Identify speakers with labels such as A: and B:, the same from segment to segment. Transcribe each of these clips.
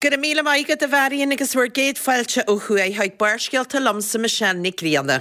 A: Go raibh míle maith agat a Mharion agus bhur gcéad fáilte ó thuaidh chuig Barrscéalta liomsa Michelle Nic Grianna.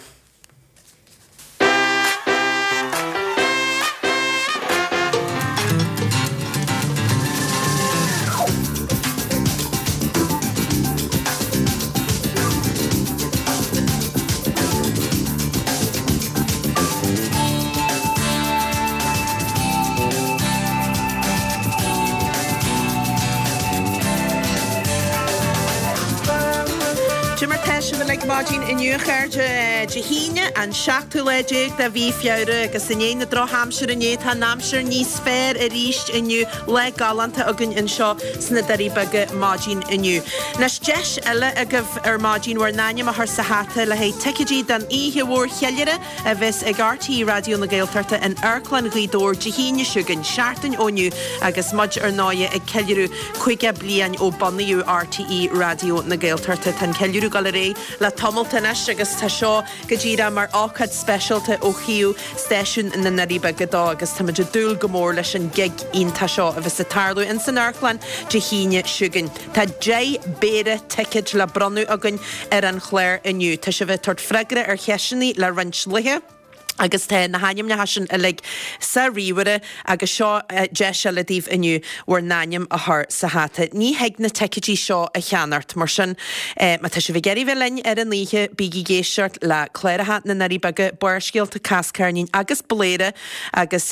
A: Cad é mar tá sibh uilig maidin inniu a chairde? Dé hAoine an seachtú lá déag de mhí Feabhra agus i ndiaidh na drochaimsire inné tá an aimsir níos fearr arís inniu. Lá galánta againn anseo sna Doirí Beaga maidin inniu. Anois deis eile agaibh ar maidin bhur n-ainm a chur sa hata le haghaidh ticéidí don oíche mhór cheiliúrtha a bheas ag RTÉ Raidió na Gaeltachta in Amharclann Ghaoth Dobhair Dé hAoine seo chugainn, seachtain ó inniu, agus muid ar ndóighe ag ceiliúradh 50 bliain ó bunaíodh RTÉ Raidió na Gaeltachta. Tá an ceiliúradh ag dul ar aghaidh le tamalt anois agus tá seo go díreach mar ócáid speisialta ó thaobh stáisiún na nDoirí Beaga dó agus táimid ag dúil go mór leis an gig iontach seo a bheas ag tarlú ins an amharclann Dé hAoine seo chugainn. Tá 10 bpéire ticéid le bronnadh againn ar an chlár inniu. Tá sibh ag tabhairt freagra ar cheisteanna le roinnt laetha agus tá na hainmneacha sin uilig sa ríomhaire agus seo deis eile daoibh inniu bhur n-ainm a chur sa hata. Ní thig na ticéidí seo a cheannacht, mar sin má tá sibh ag iarraidh bheith linn ar an oíche, bígí ag éisteacht le cláracha na nDoirí Beaga, Barrscéalta, Cás Ceirnín agus Bladhaire agus.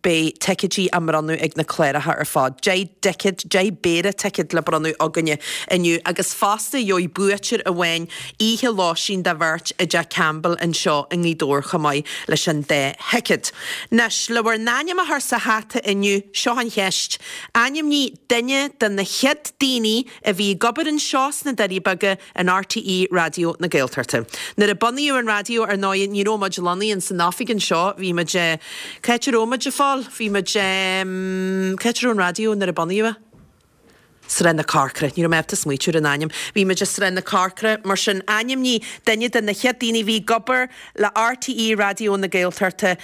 A: Beidh ticéidí á mbronnadh ag na cláracha ar fad. 10 dticéad, 10 bpéire ticéad le bronnadh againne inniu agus fosta gheobhaidh buaiteoir amháin oíche lóistín do bheirt i dTeach Campbell anseo i nGaoth Dobhair chomh maith leis an dá thicéad. Anois, le bhur n-ainm a chur sa hata inniu, seo an cheist, Ainmnigh duine de na chéad daoine a bhí ag obair anseo sna Doirí Beaga in RTÉ Raidió na Gaeltachta. Nuair a bunaíodh an raidió, ar ndóigh, ní raibh muid lonnaithe ins an oifig anseo, bhí muid, cá háit a raibh muid, a Phóil? Bhí muid, cá háit a raibh an raidió nuair a bunaíodh é? Sráid na Corcra, ní raibh mé ábalta smaoitiú ar an ainm. Bhí muid i Sráid na Corcra, mar sin ainmnigh duine de na chéad daoine a bhí ag obair le RTÉ Raidió na Gaeltachta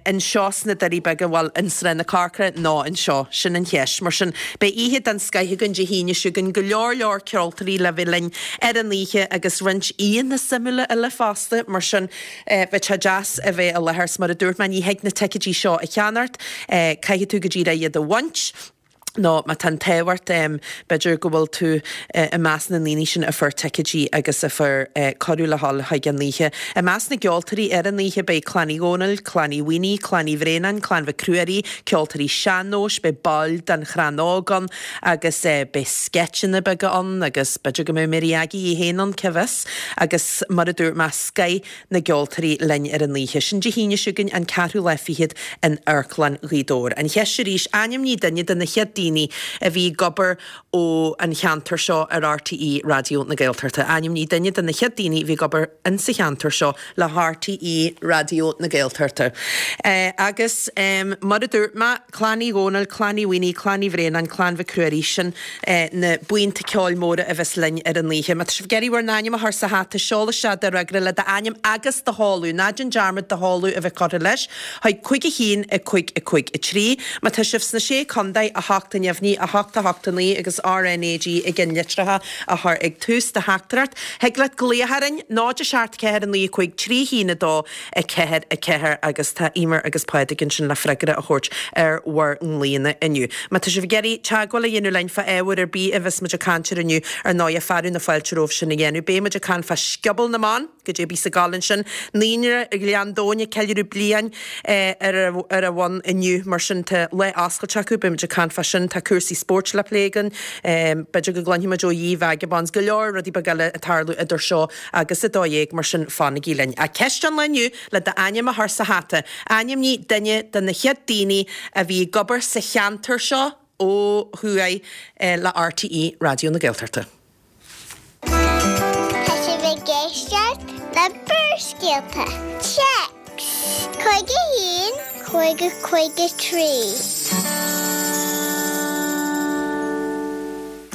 A: anseo sna Doirí Beaga, bhuel, in Sráid na Corcra nó anseo, sin an cheist. Mar sin, beidh oíche den scoith againn Dé hAoine seo chugainn, go leor leor ceoltóirí le bheith linn ar an oíche agus roinnt aíonna suimiúla eile fosta, mar sin, bheadh sé deas a bheith i láthair. 'S mar a dúirt mé, ní thig na ticéidí seo a cheannacht, caithfidh tú go díreach iad a bhaint. nó má tá an t-ádh ort, b'fhéidir go bhfuil tú i measc na ndaoine sin a fuair ticéidí agus a fuair cuireadh le dhul chuig an oíche. I measc na gceoltóirí ar an oíche beidh Clann Uí Dhónaill, Clann Uí Mhaonaigh, Clann Uí Bhraonáin, Clann Mhic Ruairí, ceoltóirí sean-nóis, beidh baill den Chrann Óg ann agus beidh sceitseanna beaga ann agus b'fhéidir go mbeidh Mary Aggie í féin ann, cá bhfios? Agus mar a dúirt mé, scoith na gceoltóirí linn ar an oíche sin Dé hAoine seo chugainn, an ceathrú lá fichead in Amharclann Ghaoth Dobhair. An cheist arís, ainmnigh duine de na chéad daoine a bhí ag obair ó an cheantar seo ar RTÉ Raidió na Gaeltachta. Ainmnigh duine de na chéad daoine a bhí ag obair insa cheantar seo le RTÉ Raidió na Gaeltachta. Agus mar a dúirt mé, Clann Uí Dhónaill, Clann Uí Mhaonaigh, Clann Uí Bhraonáin, Clann Mhic Ruairí, sin na buíonta ceoil móra a bheas linn ar an oíche. Má tá sibh ag iarraidh bhur n-ainm a chur sa hata, seol isteach do fhreagra le d'ainm agus do sheoladh, ná déan dearmad do sheoladh a bheith curtha leis, chuig 5 1 5 5 3. Má tá sibh sna Sé Contae, 8 a neamhní, 8 8 9 agus RnaG i gceannlitreacha a chur ag tús do theachtaireacht. Thig leat glaoch orainn, 0 7 4 9 5 3 1 2. 4, 4 agus tá Eimear agus Pádraig ansin le freagra a thabhairt ar bhur nglaonna inniu. Má tá sibh ag iarraidh teagmháil a dhéanamh linn fá ábhar ar bith a bheas muid ag caint air inniu, ar ndóighe, fearadh na fáilte romhaibh sin a dhéanamh. Beidh muid ag caint fá Scioból na mBan, goidé a bhíos ag gabháil ansin. Naíonra Ghleann Domhain ag ceiliúradh bliain ar an bhfód inniu, mar sin tá lá oscailte acu, beidh muid ag caint fá sin. Tá cúrsaí spóirt le plé againn, b'fhéidir go gcluinfidh muid ó Ye Vagabonds, go leor rudaí beaga eile ag tarlú idir seo agus 12, mar sin fanaigí linn. Ach ceist an lae inniu, le d'ainm a chur sa hata, ainmnigh duine de na chéad daoine a bhí ag obair sa cheantar seo ó thuaidh le RTÉ Raidió na Gaeltachta.
B: Tá sibh ag éisteacht le Barrscéalta. Téacs 51 50 53.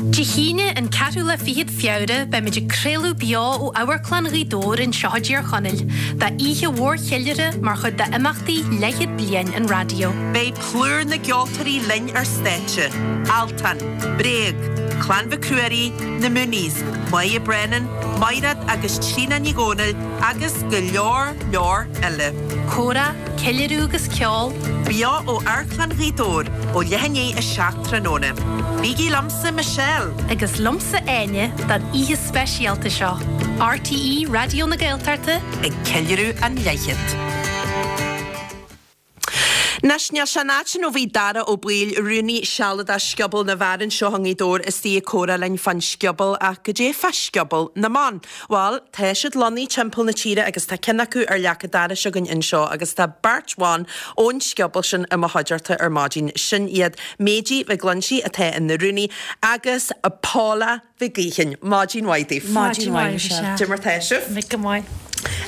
C: Dé hAoine, an ceathrú lá fichead Feabhra, beimid ag craoladh beo ó Amharclann Ghaoth Dobhair anseo i dTír Chonaill, d'oíche mhór cheiliúrtha mar chuid d'imeachtaí leathchéad bliain an raidió.
A: Beidh plúr na gceoltóirí linn ar stáitse, Altan, Bréag. Clann Mhic Ruairí, Na Mooneys, Moya Brennan, Maighread agus Tríona Ní Dhomhnaill agus go leor leor eile.
C: Comhrá, ceiliúradh agus ceol.
A: Beo ó Amharclann Ghaoth Dobhair ó leath i ndiaidh 7 tráthnóna. Bígí liomsa, Michelle.
C: Agus liomsa, Áine, don oíche speisialta seo. RTÉ Raidió na Gaeltachta.
A: Ag ceiliúradh an leathchéad. Anois, níl sé an áit sin ó bhí Dara Ó Baoill, rúnaí sealadach Scioból na bhFear anseo i nGaoth Dobhair istigh ag comhrá linn fán scioból ach goidé fá Scioból na mBan? Bhuel, tá siad lonnaithe timpeall na tíre agus tá ceann acu ar leac an dorais againn anseo agus tá beirt bhan ón scioból sin i mo chuideachta ar maidin. Sin iad Méidí Mhic Loinsigh atá ina rúnaí agus Paula Mhic Gaoithín. Maidin mhaith daoibh.
D: Maidin mhaith, Michelle.
A: Cad é mar tá sibh?
D: Mick go maith.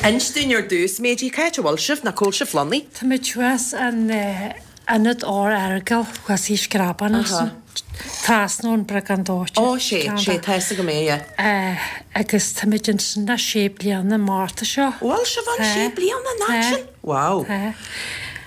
A: Inis dúinn ar dtús, Méidí, cá háit a bhfuil sibh, nó cá bhfuil sibh lonnaithe?
D: Tá muid thuas in Ionad Ór Earagail thuas i Screabán ansin, trasna ón Bhreagán Dóite.
A: Ó, sé, sé, tá fhios agam é,
D: yeah. Agus tá muid ansin le sé bliana an Márta seo.
A: Bhfuil sibh ann sé bliana, an áit sin? Wow.
D: Tá.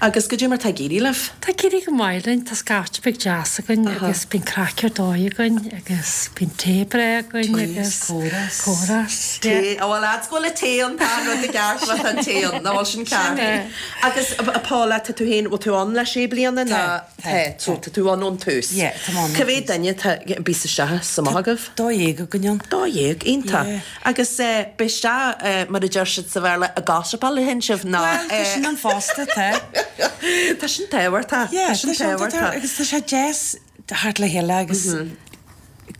A: Agus goidé mar tá ag éirí libh?
D: Tá ag éirí go maith linn, tá scaifte beag deas againn agus bíonn craic ar dóigh againn agus bíonn tae breá againn agus
A: comhrá. Tae, oh well lads go bhfuil an tae ann, tá an rud i gceart má tá an tae ann, nach bhfuil sin ceart?
D: Sin é.
A: Agus a Paula, tá tú féin, bhfuil tú ann le sé bliana nó?
E: Tá.
A: Tá, so tá tú ann ón tús.
E: Yeah, tá mé ann ón tús.
A: Cá mhéad duine atá, bíos isteach is amach agaibh?
E: 12 againn ann.
A: 12, iontach.
E: Yeah.
A: Agus b'fhéidir, mar a deir siad sa Bhéarla, ag gossipáil a théann sibh ná.
E: Bhuel, tá sin ann fosta, tá.
A: Tá sin tábhachtach.
E: Yeah,
A: Tá sin
E: tá sin
A: tábhachtach.
E: Agus tá sé deas theacht le chéile agus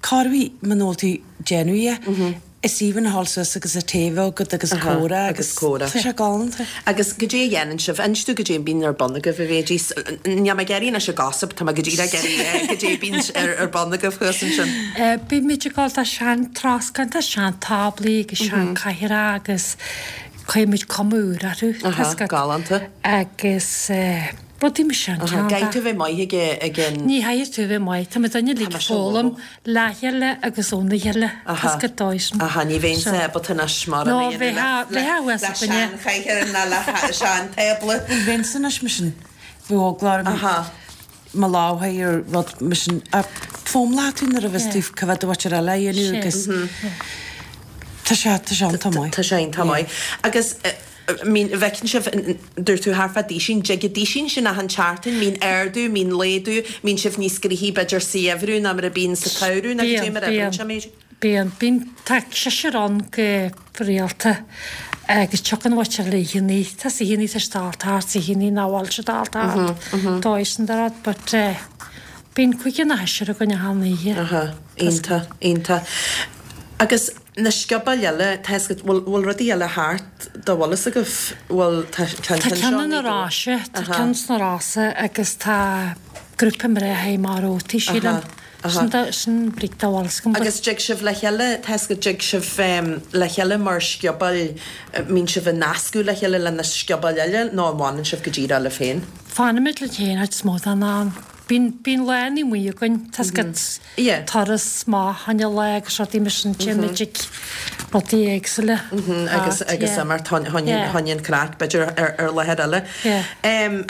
E: corruair muna bhfuil tú ag déanamh é, is aoibhinn a ghabháil suas agus an tae a bheith agat agus comhrá
A: agus comhrá.
E: Tá sé galánta.
A: Agus goidé a dhéanann sibh? Inis domh goidé a bíonn ar bun agaibh a Mhéidí. Níl mé ag iarraidh anois an gossip, tá mé go díreach ag iarraidh goidé a bíonn ar bun agaibh thuas ansin.
D: Bímid ag gabháil do sean-troscán, tá sean-táblaí agus sean-chathaoireacha agus cuirimid cuma úr orthu, tá
A: fhios agat. Galánta.
D: Agus rudaí mar sin,
A: Aha, caithfidh tú a bheith maith ag ag an.
D: Ní chaithfidh tú a bheith maith, tá muid uilig ag foghlaim le chéile agus óna chéile, tá fhios agat dóigh sin.
A: Aha, ní bheinnse ábalta anois mar
D: a dhéanamh le
A: le seanchathaoir ná le seantábla.
E: Ní bheinnse anois mar sin, bheadh eagla orm.
A: Aha.
E: mo lámh ar rud mar sin a foghlaimeoidh tú nuair a bheas tú cá bhfios do mhuintir eile a dhéanamh agus tá sé tá sé iontach maith.
A: Tá sé iontach maith. Agus mín bhfeiceann sibh dúirt tú thart fá duisín, dtig an duisín sin achan tseachtain, mbíonn ardú, mbíonn laghdú, mbíonn sibh níos gnoithí b'fhéidir sa gheimhreadh ná mar a bíonn sa tsamhradh nó goidé mar a oibríonn sé Méidí?
D: Bíonn, bíonn, tá seisear ann go rialta agus tiocfaidh an mhuintir le oícheannaí, tá 's oícheannaí tá siad ag dul thart, 's oícheannaí nach bhfuil siad ag dul thart, dóigh sin de rud, but eh bíonn cúigear nó seisear againn achan oíche.
A: Aha, iontach, iontach. Agus na sciobóil eile, tá 'fhios agat, bhfuil, bhfuil rudaí eile thart dá bhfuil fhios agaibh, bhfuil, tá
D: ceann
A: seo
D: Tá ceann na Rosa, tá ceann sna Rosa agus tá grúpa mná a mar ótaí, sílim.
A: Aha.
D: Sin bríc dá bhfuil
A: Agus dtig sibh le chéile, tá 'fhios agat, dtig sibh le chéile mar sciobóil, mbíonn sibh ag nascadh le chéile le na sciobóil eile nó an bhfanann sibh go díreach libh féin?
D: Fanaimid linn féin chuid is mó den am. Bíonn, bíonn lá amuigh againn, tá 'fhios agat, turas amach fá choinne lá agus rudaí mar sin, téimid ag rudaí éagsúla.
A: Agus, agus imeacht fá choinne an craic, b'fhéidir ar, ar láthair eile.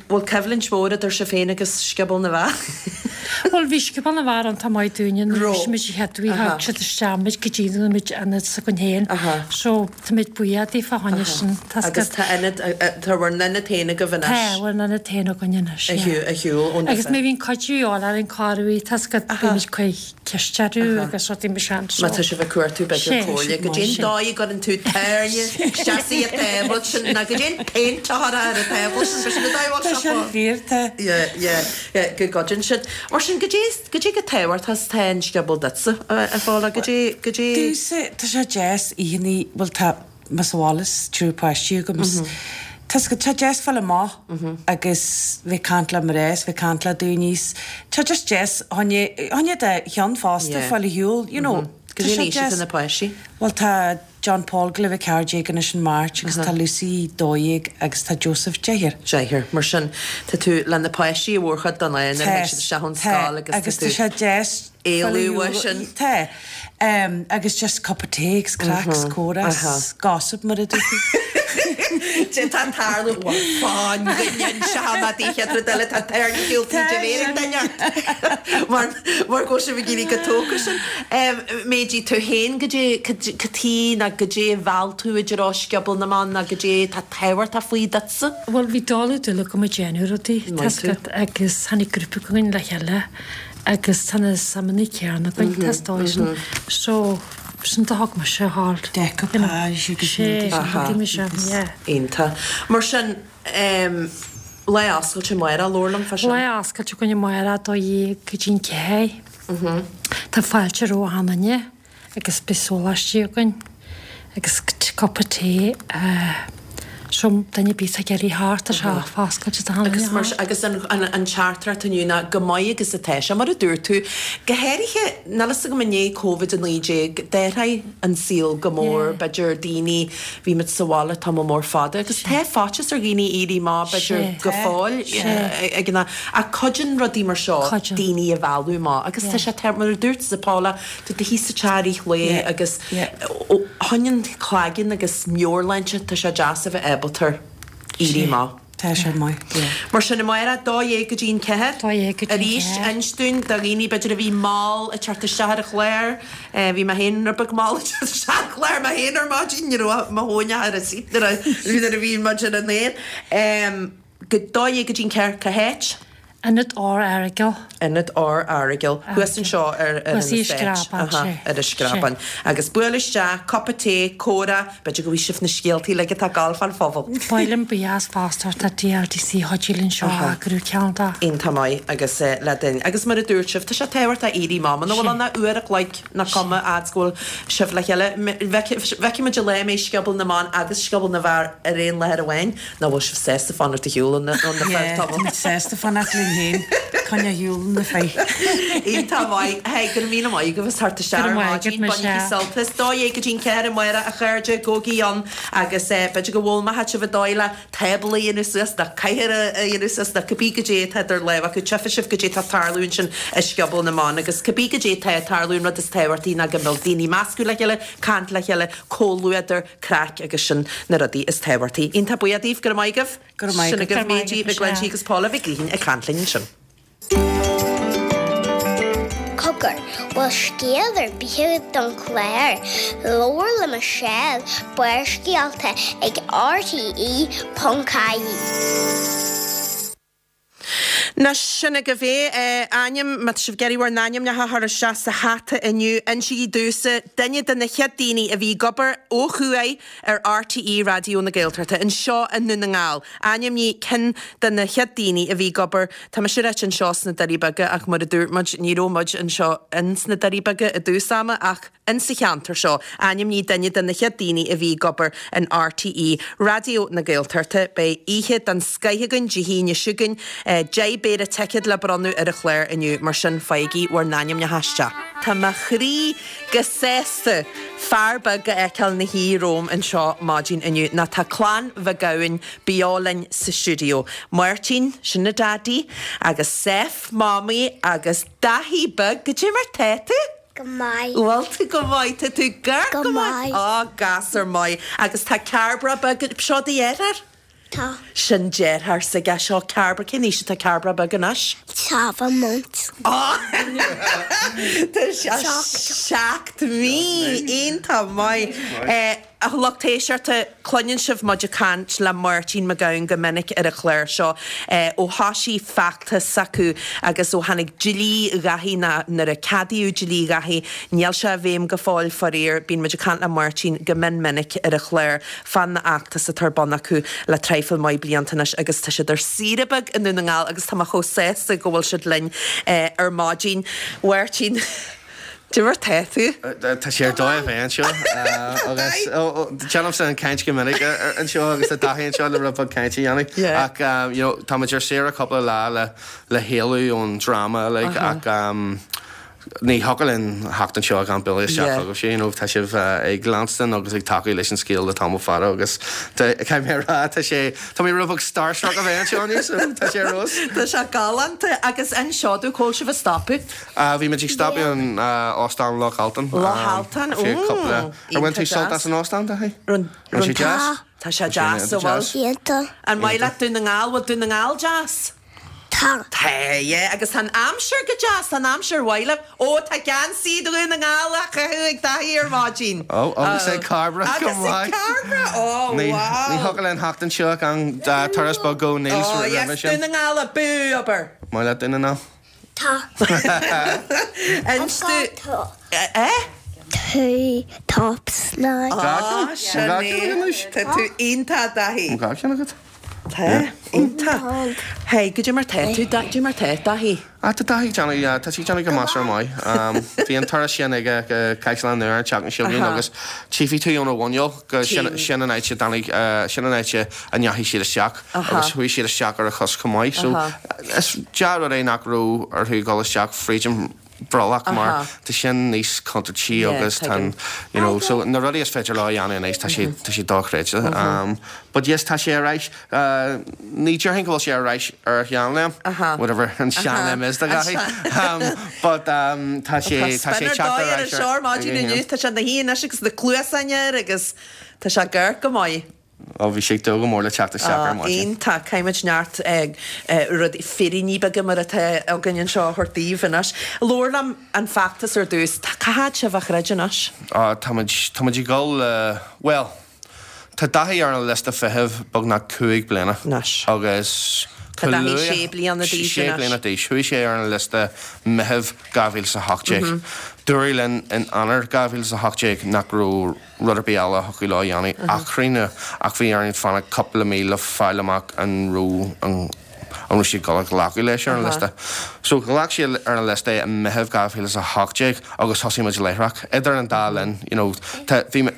A: Bhfuil coimhlint mhór idir sibh féin agus Scioból na bhFear?
D: Bhuel, bhí Scioból na bhFear iontach maith dúinne nuair a bhí muid an chéad uair, thug siad isteach muid go dtí go raibh muid ionad s'againn féin. So, tá muid buíoch daofa fá choinne sin.
A: Tá Agus tá ionad, tá bhur n-ionad féin agaibh anois.
D: Tá bhur n-ionad féin againn anois,
A: yeah. Ar shiúl ón
D: Agus má bhíonn cuidiú a dhíobháil orainn corruair, tá 's agat, bímid ag cur ceist orthu agus rudaí mar sin, so.
A: Má tá sibh ag cuartú b'fhéidir comhairle, goidé an dóigh a gcuireann tú tairne isteach sa tábla sin, nó goidé an péint a chuirfeá ar an tábla sin, b'shin an dóigh a bhfuil
E: Tá
A: sé
E: sin fíor, tá.
A: Yeah, yeah. Go gcuidíonn siad. Mar sin, goidé, goidé chomh tábhachtach is atá an scioból duitse, a Phaula, goidé, goidé.
E: Domhsa, tá sé deas oícheannaí, bhuel tá mé sa bhaile is triúr páistí agam is tá 's agat, tá sé deas fáil amach agus bheith ag caint le mná is bheith ag caint le daoine is tá just deas fá choinne, fá choinne do cheann fosta fáil ar shiúl, you know. Tá
A: Goidé
E: sé
A: an aois atá
E: deas.
A: na páistí?
E: Bhuel tá John Paul ag gabháil a bheith 14 anois in March agus tá Lucy 12 agus tá Joseph deichniúr.
A: Deichniúr. Mar sin, tá tú le na páistí an mhórchuid den lá nuair a
E: Tá,
A: théann siad isteach ón
E: tá,
A: scoil agus
E: agus
A: tá
E: tá
A: tú
E: sé deas
A: éalú uaidh sin.
E: Tá. Agus just cup of tea agus craic 's comhrá 's gossip mar a dúirt tú.
A: Dé tá tarlú bhuel fán duine anseo ná dí chéad rud eile tá tairne shiúl tríd a mhéar ag duine ort mar mar go bhfuil sibh ag éirí chomh tógtha sin. Méidí tú féin goidé cad chuige ná goidé a mheall tú i dtreo Scioból na mBan ná goidé tá tábhachtach faoi duitsa?
D: Bhuel bhí dul ag dul agam ag déanamh rudaí, tá 's agat, agus tháinig grúpa againn le chéile agus tá na suimeanna céanna againn, tá is dóigh sin. So, sin do thug mise thall.
E: Decoupage agus
D: Sé, rudaí mar sin, yeah.
A: Iontach. Mar sin, lá oscailte amárach, labhair liom fá sin.
D: Lá oscailte againn amárach, 12 go dtí'n 4. Tá fáilte roimh achan duine. agus beidh sóláistí againn agus cupa tae so duine ar bith atá ag iarraidh theacht tá sé foscailte do achan duine
A: Agus mar agus an an teachtaireacht inniu ná go maith agus atá sé mar a dúirt tú go háirithe níl fhios agam i ndiaidh Covid-19 d'athraigh an saol go mór b'fhéidir daoine bhí muid sa bhaile tamall mór fada agus tá faitíos ar dhaoine éirí amach b'fhéidir go fóill ag an ach cuidíonn rudaí mar seo daoine a mhealladh amach agus tá sé mar a dúirt Paula Tá tú thíos sa teach i rith lae agus ó thaobh an cloigeann agus meabhairshláinte tá sé deas a bheith ábalta éirí amach.
E: Tá sé maith, yeah.
A: Mar sin amárach, 12 go dtí an 4.
D: 12 go dtí an 4.
A: Arís, inis dúinn do dhaoine b'fhéidir a bhí mall ag teacht isteach ar an chlár. Bhí mé féin rud beag mall ag teacht isteach ar an chlár mé féin ar maidin, ní raibh mo thóin ach ar an seat nuair a bhí muid ar an aer. Go 12 go dtí an 4, cá háit?
D: Ionad R Aireagail.
A: Ionad R Aireagail. Thuas anseo ar an
D: Thuas i
A: Estate.
D: Screabán,
A: Aha,
D: sé.
A: ar an Screabán. Agus buail isteach, cupa tae, comhrá, b'fhéidir go bhfaighidh sibh na scéaltaí uilig atá ag gabháil fán phobal.
D: Ba mhaith liom buíochas fosta a thabhairt do DLDC a chuidigh linn seo a eagrú ceann de.
A: Iontach maith agus le duine. Agus mar a dúirt sibh, tá sé tábhachtach éirí amach. Muna bhfuil ann ach uair a chloig nach cuma fhad 's go bhfuil sibh le chéile. Feicfidh muid an lá a mbeidh Scioból na mBan agus Scioból na bhFear ar aon láthair amháin. Nach bhfuil sibh sásta fanacht ar shiúl ó na fir
E: tamall? Táimid sásta fanacht linn féin, coinneáil ar shiúl ó na fir.
A: Iontach maith. Hey, go raibh míle maith agaibh as theacht isteach
D: Go
A: ar
D: raibh maith agat,
A: maidin. Bainigí
D: Michelle.
A: sult as. 12 go dtí'n 4 amárach a chairde, gabhaigí ann agus b'fhéidir go bhfoghlaimeoidh sibh an dóigh le tábla a dhéanamh suas nó cathaoir a dhéanamh suas nó cibé goidé atá idir lámha acu. Tchífidh sibh goidé atá ag tarlú ansin i Scioból na mBan agus cibé goidé atá ag tarlú an rud is tábhachtaí ná go mbeadh daoine ag meascadh le chéile, caint le chéile, comhluadar, craic agus sin na rudaí is tábhachtaí. Iontach buíoch daoibh, go raibh maith agaibh.
E: Go raibh maith
A: Sin
E: agat.
A: agaibh Méidí Mhic Glinsigh agus Paula Mhic Gaoithín ag caint linn ansin.
B: Cogar, bhfuil scéal ar bith agat don chlár? Labhair le Michelle, Barrscéalta ag rte.ie.
A: Anois, sin agaibh é. Ainm, má tá sibh ag iarraidh bhur n-ainmneacha a chur isteach sa hata inniu, insígí domhsa duine de na chéad daoine a bhí ag obair ó thuaidh ar RTÉ Raidió na Gaeltachta, anseo i nDún na nGall. Ainmnigh ceann de na chéad daoine a bhí ag obair, tá mise ráite anseo sna Doirí Beaga ach mar a dúirt muid, ní raibh muid anseo ins na Doirí Beaga i dtús ama ach, Insa cheantar seo, ainmnigh duine de na chéad daoine a bhí ag obair in RTÉ Raidió na Gaeltachta. Beidh oíche den scoith againn Dé hAoine seo chugainn. 10 bpéire ticéad le bronnadh ar an chlár inniu, mar sin faighigí bhur n-ainmneacha isteach. Tá mo chroí go sásta fear beag a fheiceáil 'na shuí romham anseo maidin inniu, nó tá Clann Mhic Gabhann beo linn sa stiúideo. Máirtín, sin a Daidí, agus Seph, Mamaí, agus Daithí beag, goidé mar tá tú?
B: Go maith.
A: Bhfuil tú go maith? Tá tú gar
B: Go
A: go maith.
B: maith.
A: Á, gasúr maith. Agus tá Cairbre beag, seo do dheartháir?
B: Tá.
A: Sin deartháir s'aige, seo Cairbre, cén aois atá Cairbre beag anois?
B: Seven months.
A: Á! Tá sé 7 mí! Iontach maith. A lucht éisteachta, cluineann sibh muid ag caint le Máirtín Mac Gabhann go minic ar an chlár seo. Ó thoisigh feachtas s'acu agus ó tháinig dlí Dhaithí, nó nuair a ceadaíodh dlí Dhaithí, níl sé i bhfeidhm go fóill faraor, bíonn muid ag caint le Máirtín go mion minic ar an chlár fán fheachtas atá ar bun acu le traidhfil maith blianta anois agus tá siad ar saoire beag i nDún na nGall agus tá mé chomh sásta go bhfuil siad linn ar maidin. Mháirtín. Goidé mar tá tú?
F: Tá sé ar dóigh a bheith anseo agus déanaimse an caint go minic anseo agus tá Daithí anseo le rud beag cainte a dhéanamh ach you know tá muid ar saoire cúpla lá le le héalú ón dráma uilig ach. Ní thiocfadh linn theacht anseo gan bualadh isteach chugaibhse, you know, tá sibh ag leanstan agus ag tacú leis an scéal le tamall fada agus caithfidh mé a rá, tá sé, tá mé rud beag starstruck a bheith anseo inniu, so tá sé ar fheabhas.
A: Tá sé galánta agus inis domh, cá bhfuil sibh ag stopadh?
F: Bhí muid ag stopadh in Óstán Loch Altan.
A: Loch Altan,
F: Ar bhain tú sult as an óstán, Daithí? Raibh sé deas?
A: Tá sé deas, an bhfuil?
B: Iontach.
A: An maith leat Dún na nGall? Bhfuil Dún na nGall deas?
B: Tá.
A: Tá, yeah, agus tá an aimsir go deas, tá an aimsir mhaith libh. Ó, tá geansaí Dhún na nGall á chaitheamh ag Daithí ar maidin.
F: Ó, agus ag Cairbre
A: Agus
F: chomh
A: ag
F: maith.
A: Cairbre, ó,
F: Ní
A: wow.
F: ní thiocfadh linn theacht anseo gan turas beag go Neil's
A: Ó,
F: roimhe
A: yes,
F: sin.
A: Dún na nGall abú, abair.
F: Maith leat Dún na nGall?
B: Tá.
A: Inis
B: I've
A: do.
B: got top.
A: Eh?
B: Two tops now.
A: Á, sin
F: Tá ceann
A: é.
F: anois.
A: Tá tú iontach, Daithí.
F: Tá ceann agat?
A: Tá, iontach. Hey, goidé mar tá tú, goidé mar tá Daithí?
F: Ah, tá Daithí ag déanamh, tá sí ag déanamh go measartha maith. Bhí an turas sin aige go Caisleán Nua an tseachtain seo chugainn agus tchífidh tú óna mhuineál go sin, sin an áit a dtáinig, sin an áit a ndeachaigh siad isteach agus chuaigh siad isteach ar a chos chomh maith. So, is dea-rud é nach raibh orthu dul isteach fríd an brollach mar tá sin níos contúirtí agus tá an, you know, so na rudaí is féidir leo a dhéanamh anois tá sé, tá sé dochreidte. But yes, tá sé ar ais, ní déarfainn go bhfuil sé ar ais ar a sheanléim, whatever an seanléim is do Dhaithí, but tá sé, tá sé ag teacht ar ais
A: ar ar maidin inniu, tá sé ina shuí anois agus na cluasáin air agus tá sé ag amharc go maith.
F: Ó, bhí sé ag dúil go mór le teacht isteach ar maidin.
A: Iontach. Caithfimid neart rudaí, féiríní beaga mar atá againn anseo a thabhairt daoibh anois. Labhair liom an feachtas ar dtús. Tá, cá fhad sibh á throid anois?
F: Á, táimid, táimid ag dul le, bhuel, tá Daithí ar an liosta feithimh beagnach 5 bliana.
A: Anois.
F: Agus
A: Tá Daithí sé bliana d'aois anois.
F: Sé bliana d'aois. Chuaigh sé ar an liosta Meitheamh 2018. Dúradh linn in Eanáir 2018 nach raibh rud ar bith eile a thiocfadh leo a dhéanamh ach críochnú, ach bhí orainn fanacht cúpla mí le fáil amach an raibh an an raibh siad ag dul a ghlacadh leis ar an liosta. So ghlac siad ar an liosta é i Meitheamh 2018 agus thosaigh muid láithreach. Idir an dá linn, you know, tá, bhí mé,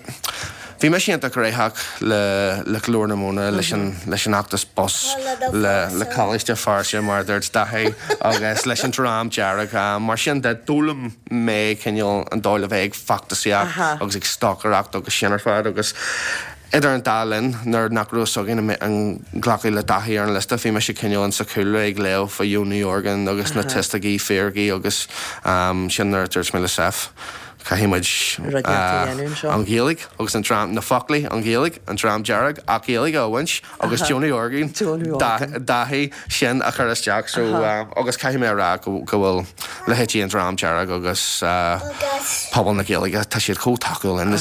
F: bhí mise iontach gnóthach le, le Glór na Móna, leis an, leis an fheachtas bus, le, le Coláiste Feirste mar a dúirt Daithí agus leis an Dream Dearg. Mar sin de, d'fhoghlaim mé cineál an dóigh le bheith ag feachtasaíocht agus ag stocaireacht agus sin ar fad agus idir an dá linn nuair nach raibh fhios againn an nglacfaí le Daithí ar an liosta bhí mise cineál in sa chúlra ag léamh fá Jón Uí Orgáin agus na tuisticí fíricí agus sin nuair a dúirt mé le Seph caithfidh muid an Ghaeilge agus an dream, na foclaí, an Ghaeilge, an Dream Dearg ach Gaeilge a bhaint agus Joe Ní Orgáin, Daithí, sin a chur isteach so agus caithfidh mé a rá go bhfuil leithéidí an Dream Dearg agus pobal na Gaeilge, tá siad chomh tacúil linn.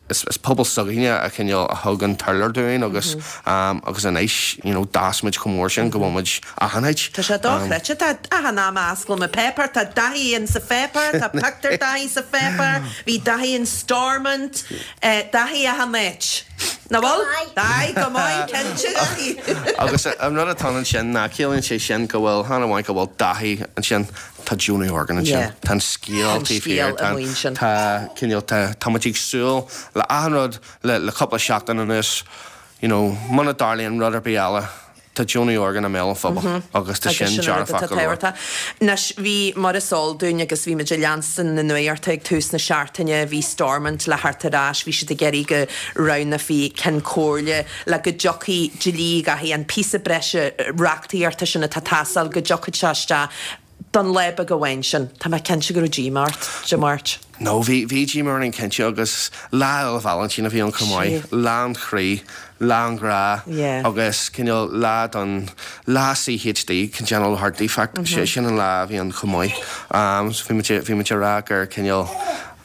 F: Is pobal s'againne a chineál a thug an t-urlár dúinn agus agus anois you know d'fhás muid chomh mór sin go bhfuil muid achan áit.
A: Tá sé dochreidte, tá achan am a osclaím an páipéar, tá Daithí in sa pháipéar, tá pictiúr Daithí sa pháipéar, bhí Daithí in Stormont, Daithí achan áit. Nach bhfuil? Aye, go maith, cinnte, Daithí.
F: Agus an rud atá ansin ná ciallaíonn sé sin go bhfuil, chan amháin go bhfuil Daithí ansin, tá Joe Ní Orgáin ansin. Tá an scéal
A: Tá an
F: taobh
A: scéal
F: thiar,
A: amuigh ansin.
F: tá cineál, tá, tá muid ag súil le achan rud le, le cúpla seachtain anuas, you know, muna dtarlaíonn rud ar bith eile, Tá Joe Ní Orgáin i mbéal an phobail agus tá
A: Agus
F: sin
A: sin an rud
F: dearfach
A: atá
F: go leor.
A: tábhachtach. Anois, bhí, mar is eol dúinn agus bhí muid ag leanstan na nuachta ag tús na seachtaine, bhí Stormont le theacht ar ais, bhí siad ag iarraidh go roghnófaí Ceann Comhairle le go dtiocfaidh dlí Dhaithí, an píosa breise reachtaíochta sin atá ag teastáil, go dtiocfadh sé isteach don lá beag amháin sin. Tá mé cinnte go raibh díomá ort Dé Máirt.
F: No, bhí, bhí díomá orainn cinnte agus Lá Fhéile Vailintín a bhí ann chomh maith, lá an chroí, lá an ghrá agus cineál lá don, lá CHD, congenital heart defect, sin an lá a bhí ann chomh maith. So bhí muid, bhí muid ag rá gur cineál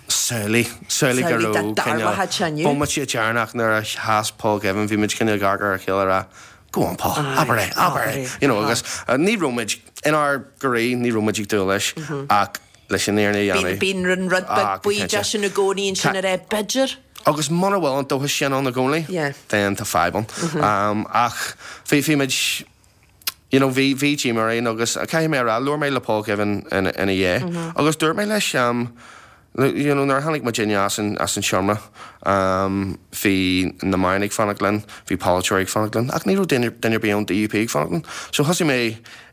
F: samhlaigh, samhlaigh go raibh cineál bomaite deireanach nuair a sheas Paul Givan, bhí muid cineál ag amharc ar a chéile ag rá, Go on Paul, abair é, abair é, you know agus ní raibh muid, inár gcroí, ní raibh muid ag dúil leis ach leis an fhírinne a dhéanamh.
A: Bíonn an rud beag baoideach sin i gcónaí ansin ar é, b'fhéidir.
F: Agus muna bhfuil an dóchas sin ann i gcónaí, then tá fadhb ann. Ach bhí, bhí muid, you know, bhí, bhí díomá orainn agus caithfidh mé a rá, labhair mé le Paul Givan ina dhiaidh agus dúirt mé leis, You know, nuair a tháinig muidinne as an, as an seomra, bhí na meáin ag fanacht linn, bhí polaiteoirí ag fanacht linn, ach ní raibh duine, duine ar bith ón DUP ag fanacht linn. So thosaigh mé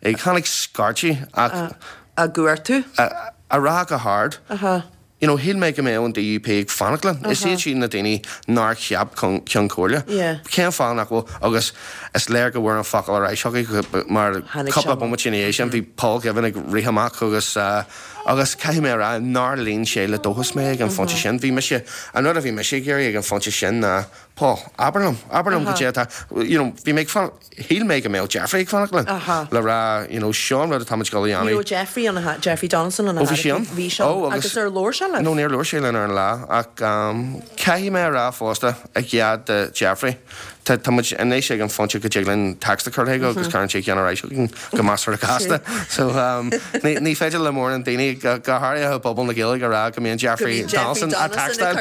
F: ag, tháinig scairtigh ach.
A: Á gcuartú?
F: A rá go hard, you know, shíl mé go mbeadh an DUP ag fanacht linn. Is iad siad na daoine nár cheap Ceann Comhairle. Cén fáth nach bhfuil, agus is léir go bhfuair an focal ar ais chucu mar cúpla bomaite ina dhiaidh sin bhí Paul Givan ag rith amach agus agus caithfidh mé a rá nár líon sé le dóchas mé ag an phointe sin. Bhí mise, an rud a bhí mise ag iarraidh ag an phointe sin ná Paul, abair liom, abair liom goidé atá, you know, bhí mé ag fanacht, shíl mé go mbeadh Jeffrey ag fanacht linn le rá, you know, seo an rud atá muid ag dul a dhéanamh.
A: Ní raibh Jeffrey ann, a Jeffrey Donaldson ann,
F: Ó, bhí sé ann?
A: Bhí sé ann. Agus ar labhair sé libh?
F: No, níor labhair sé linn ar an lá, ach caithfidh mé a rá fosta, i gcead do Jeffrey, tá, tá muid anois ag an phointe go dtig linn text a chur chuige agus cuireann sé ceann ar ais chugainn go measartha gasta. So, ní, ní féidir le mórán daoine, go, go háirithe i bpobal na Gaeilge, a rá go mbíonn Jeffrey Donaldson á textáil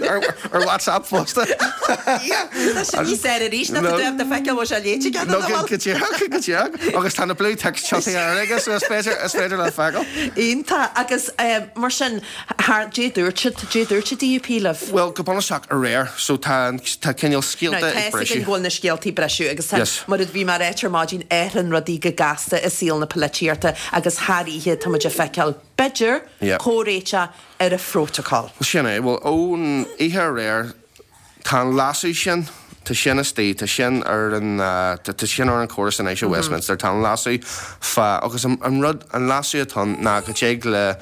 F: ar, ar WhatsApp fosta.
A: Tá sin níos fearr arís ná tá tú ábalta feiceáil bhfuil sé léite aige nó nach bhfuil.
F: Go díreach, go díreach. Agus tá na blue ticks tiontaithe air aige so is féidir, is féidir leat feiceáil.
A: Iontach. Agus mar sin, thar, dé dúirt siad, dé dúirt an DUP libh?
F: Bhuel, go bunúsach aréir. So tá, tá cineál
A: scéalta ag briseadh. Now, tá 'fhios againn go bhfuil na scéaltaí ag briseadh agus tá, mar a bhí mé a ráit ar maidin, athraíonn rudaí go gasta i saol na polaitíochta agus thar oíche tá muid ag feiceáil, b'fhéidir, comhréiteach ar an phrótacal.
F: Sin é. Bhuel, ón oíche aréir, tá an leasú sin, tá sin istigh, tá sin ar an, tá sin ar an chóras anois i Westminster, tá an leasú fá, agus an rud, an leasú atá ann ná go dtig le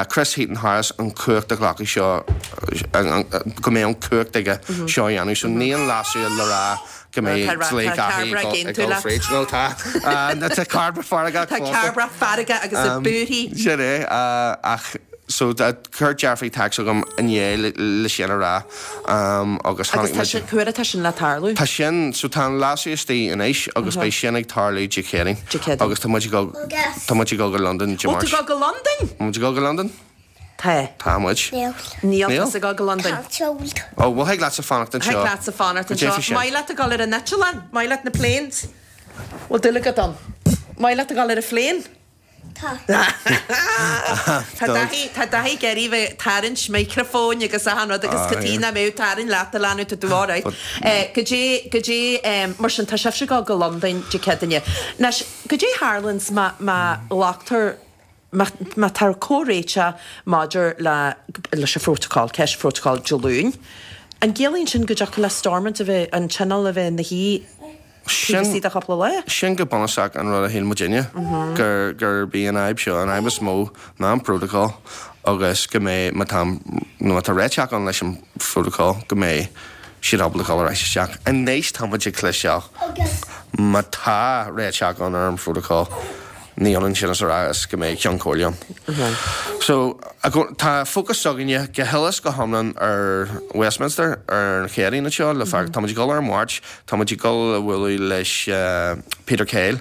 F: Chris Heaton-Harris an chumhacht a ghlacadh seo, go mbeidh an chumhacht aige seo a dhéanamh. So ní an leasú le rá go mbeidh dlí Dhaithí ag dul fríd. No tá. Tá Cairbre feargach
A: Tá Cairbre feargach agus ag búirthigh.
F: Sin é. Ach so chuir Jeffrey text chugam inné le sin a rá
A: agus tháinig muid. Agus tá sin, cá huair atá sin le tarlú?
F: Tá sin, so tá an leasú istigh anois agus beidh sin ag tarlú Dé Céadaoin.
A: Dé Céadaoin.
F: Agus tá muid ag dul, tá muid ag dul go Londain Dé
A: Máirt. Ó, tá tú ag dul go Londain?
F: Tá muid ag dul go Londain.
A: Tá.
F: Tá muid.
B: Níl.
A: Níl tusa ag dul go Londain.
B: Tá tú.
F: Ó, bhuel thig leatsa fanacht anseo.
A: Thig leatsa fanacht anseo. Maith leat a dhul ar an eitleán? Maith leat na planes? Bhfuil dúil agat ann? Maith leat a dhul ar an phlane?
B: Tá.
A: Tá Daithí, tá Daithí ag iarraidh bheith ag tarraingt micreafóin agus achan rud agus cad chuige nach mbeadh tarraing leat a leanbh, tá tú alright. Goidé, goidé, mar sin tá sibhse ag dul go Londain Dé Céadaoine. Anois, goidé a tharlaíonns má, má ghlactar Má tá comhréiteach maidir le leis an phrótacal, ceist phrótacail Dé Luain, an gciallaíonn sin go dtiocfadh le Stormont a bheith, an Tionól a bheith ina shuí taobh istigh de chúpla lá?
F: Sin go bunúsach an rud a shíl muidinne, gur gurb í an fhadhb seo, an fhadhb is mó ná an prótacal agus go mbeidh, má tá, nó má tá réiteach ann leis an phrótacal, go mbeidh siad ábalta dul ar ais isteach. Anois tá muid ag cloisteáil, má tá réiteach ann ar an phrótacal, Ní ionann sin is a rá is go mbeidh Ceann Comhairle ann. So, tá fócas s'againne go huile is go hiomlán ar Westminster ar an Chéadaoin anseo le fear, tá muid ag dul ar an Mháirt, tá muid ag dul a bhualadh leis Peter Kyle,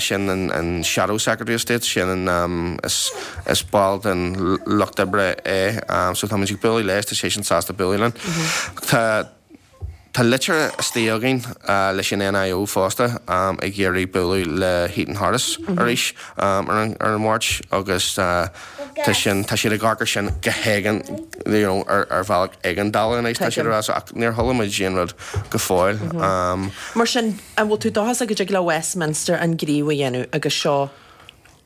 F: sin an Shadow Secretary of State, sin an, is ball den Lucht Oibre é, so tá muid ag bualadh leis, tá seisean sásta bualadh linn. Tá. Tá litir istigh againn leis an NIO fosta ag iarraidh bualadh le Heaton Harris arís ar an Mháirt agus tá sin, tá siad ag amharc ar sin go héigean, you know, ar bhealach éigeandála anois tá siad ag rá so ach níor chuala muid aon rud go fóill.
A: Mar sin, an bhfuil tú dóchasach go dtig le Westminster an gníomh a dhéanamh agus seo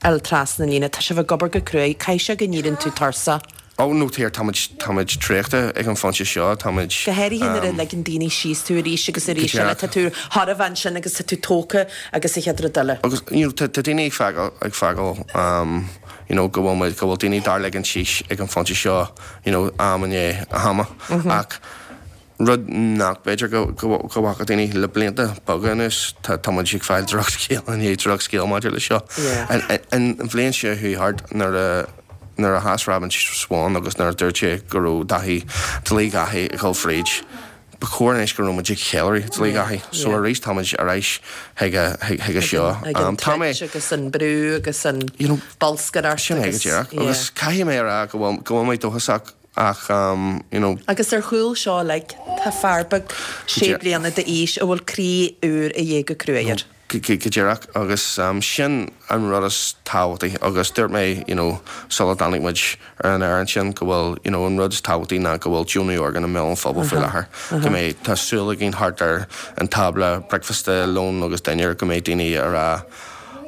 A: fháil trasna an líne. Tá sibh ag obair go cruaidh. Caithfidh sé go n-éiríonn tú tuirseach.
F: Ó, no dear, táimid, táimid traochta ag an phointe seo, táimid.
A: Go háirithe nuair a ligeann daoine síos tú arís agus arís eile. Tá tú chóir a bheith ansin agus tá tú tógtha agus an chéad rud eile.
F: Agus, you know, tá, tá daoine ag feiceáil, ag feiceáil, you know, go bhfuil muid, go bhfuil daoine dár ligean síos ag an phointe seo, you know, am i ndiaidh ama. Ach Rud nach b'fhéidir go bhfaca daoine le blianta beaga anuas, tá muid ag fáil drochscéal i ndiaidh drochscéal maidir leis seo. An bhliain seo chuaigh thart, nuair a nuair a sheas Robin Swann agus nuair a dúirt sé go raibh Daithí, dlí Dhaithí ag dul fríd, ba chóir anois go raibh muid ag ceiliúradh dlí Dhaithí. So arís tá muid ar ais chuige seo.
A: Chuig an troid agus an brú agus an bolscaireacht.
F: Sin é go díreach. Agus caithfidh mé a rá go bhfuil mé dóchasach Ach, you know.
A: Agus ar chúl seo uilig, tá fear beag sé bliana d'aois a bhfuil croí úr a dhíth go cruaidh air.
F: Go díreach, agus sin an rud is tábhachtaí agus dúirt mé, you know, sula dtáinig muid ar an aer ansin go bhfuil, you know, an rud is tábhachtaí ná go bhfuil Joe Ní Organ i mbéal an phobail faoi láthair, go mbeidh, tá súil againn thart ar an tábla bricfeasta, lón agus dinnéar, go mbeidh daoine ag rá.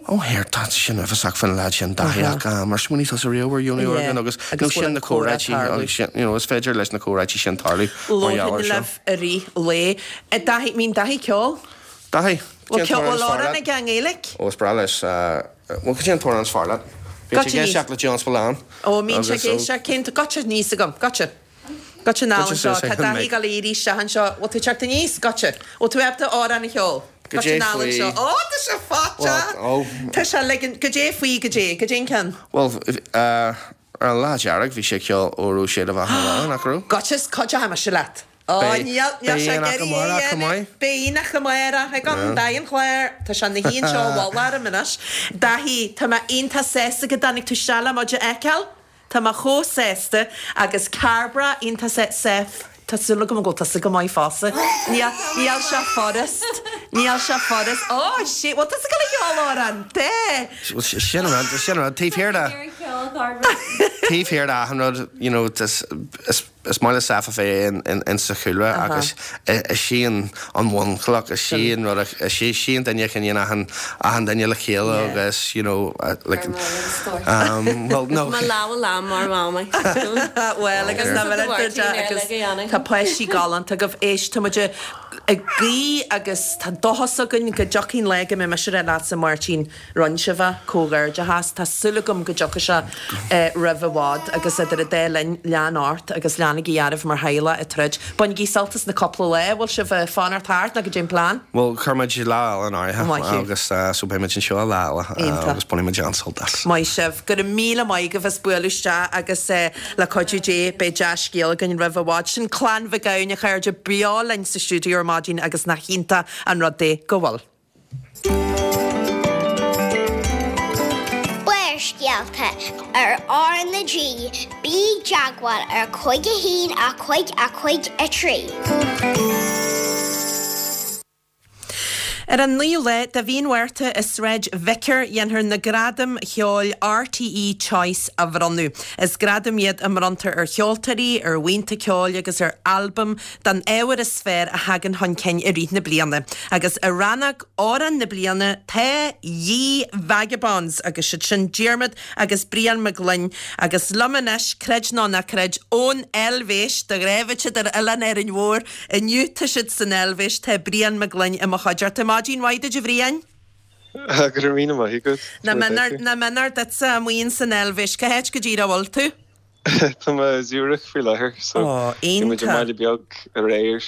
F: Ó here, tá sin uafásach faoin leaid sin Daithí ach ar smaoinigh tusa riamh ar Dheonú orgán agus nó sin na comhráití agus sin, you know, is féidir leis na comhráití sin tarlú mar gheall air
A: Labharfainn
F: seo.
A: libh i rith lae. Daithí, mbíonn Daithí ag ceol?
F: Daithí,
A: Bhfuil
F: cén t-amhrán
A: bhfuil
F: is fearr
A: amhrán
F: leat?
A: aige i nGaeilge?
F: Ó, is breá leis, bhuel, cad é an t-amhrán is fearr leat? Bíonn sé
A: Goitse
F: ag
A: aníos.
F: éisteacht le John Spillane
A: Ó, mbíonn sé
F: agus
A: ag
F: ó.
A: éisteacht, cén, goitse aníos agam, goitse. Goitse anall
F: Goitse
A: anseo,
F: suas
A: tá
F: ag an
A: Daithí
F: mic.
A: ag dul a éirí isteach anseo, bhfuil tú ag teacht aníos? Goitse. Bhfuil tú ábalta amhrán a cheol?
F: Goidé
A: Goitse anall
F: faoi.
A: anseo. Ó, tá sé faighte!
F: Well, ó.
A: Tá sé ligean, goidé faoi, goidé, goidé an ceann?
F: Bhuel, ar an Lá Dearg bhí sé ag ceol Óró Sé do Bheatha 'Na Bhaile, nach raibh?
A: Goitse, is cuid acu mise leat. Ó,
F: Beidh,
A: níl, níl
F: beidh
A: sé ag
F: aonach
A: iarraidh é a
F: amárach chomh
A: dhéanamh.
F: maith.
A: Beidh aonach amárach ag an Daithí an Chláir. Tá sé ina shuí anseo i bhfolach orm anois. Daithí, tá mé iontach sásta go dtáinig tú isteach le muid a fheiceáil. Tá mé chomh sásta agus Cairbre iontach sa Seth, tá súil agam go bhfuil tusa go maith fosta. Níl, níl sé furast, níl sé furast. Ó, shit, bhfuil tusa ag dul a cheol amhrán? Tá!
F: Sin an rud, sin an rud, taobh thiar de, taobh thiar de achan rud, you know, is, is, Is maith le Seth a bheith in sa chúlra agus is í an bhunchloch, is í an rud, is í an duine a choinníonn achan achan duine le chéile agus you know like um well no.
G: Mo lámha lán mar mhamaí.
A: Bhuel agus na agus tá páistí galánta agaibh. Éist, tá muid ag guí agus tá dóchas againn go dtiocfaidh an lá go mbeidh mise ag rá leatsa Máirtín Rinne sibh é, comhghairdeachas. Tá súil agam go dtiocfaidh sé roimh i bhfad agus idir an dá linn, lean ort agus leanaigí oraibh mar theaghlach ag troid. Bainigí sult as na cúpla lá, bhfuil sibh ag fanacht thart nó goidé an plean?
F: Bhuel, chuir muid lá eile in áirithe
A: Maith thú.
F: agus so beidh muid anseo lá eile
A: Iontach.
F: agus bainfidh muid an-sult as.
A: Maith sibh. Go raibh míle maith agaibh as bualadh isteach agus le cuidiú Dé beidh dea-scéal againn roimh i bhfad. Sin Clann Mhic Gabhann, a chairde, beo linn sa stiúideo ar maidin agus nach iontach an rud é go bhfuil.
B: Barrscéalta ar R na G, bí i dteagmháil ar 5 1 5 5 3.
A: Ar an 9ú lá de mhí an Mhárta i Sráid Vicar dhéanfar na Gradaim Cheoil RTÉ Choice a bhronnadh. Is gradaim iad a mbronntar ar cheoltóirí, ar bhuíonta ceoil agus ar albaim don ábhar is fearr a thagann chun cinn i rith na bliana. Agus i rannóg Amhrán na Bliana tá Ye Vagabonds agus siad sin Diarmuid agus Brian Mac Gloinn agus liom anois, creid nó ná creid, ón Eilvéis, de ghnáth bheadh siad ar Oileán Árainn Mhór, inniu tá siad san Eilvéis, tá Brian Mac Gloinn i mo chuideachta. Maidin mhaith duit a Bhriain.
H: Go raibh míle maith agat.
A: Nach méanar duitse amuigh ins an Eilvéis, cá háit go díreach a bhfuil tú?
H: Tá mé i Zurich faoi láthair so
A: Ó,
H: bhí muid i
A: iontach.
H: mbaile beag aréir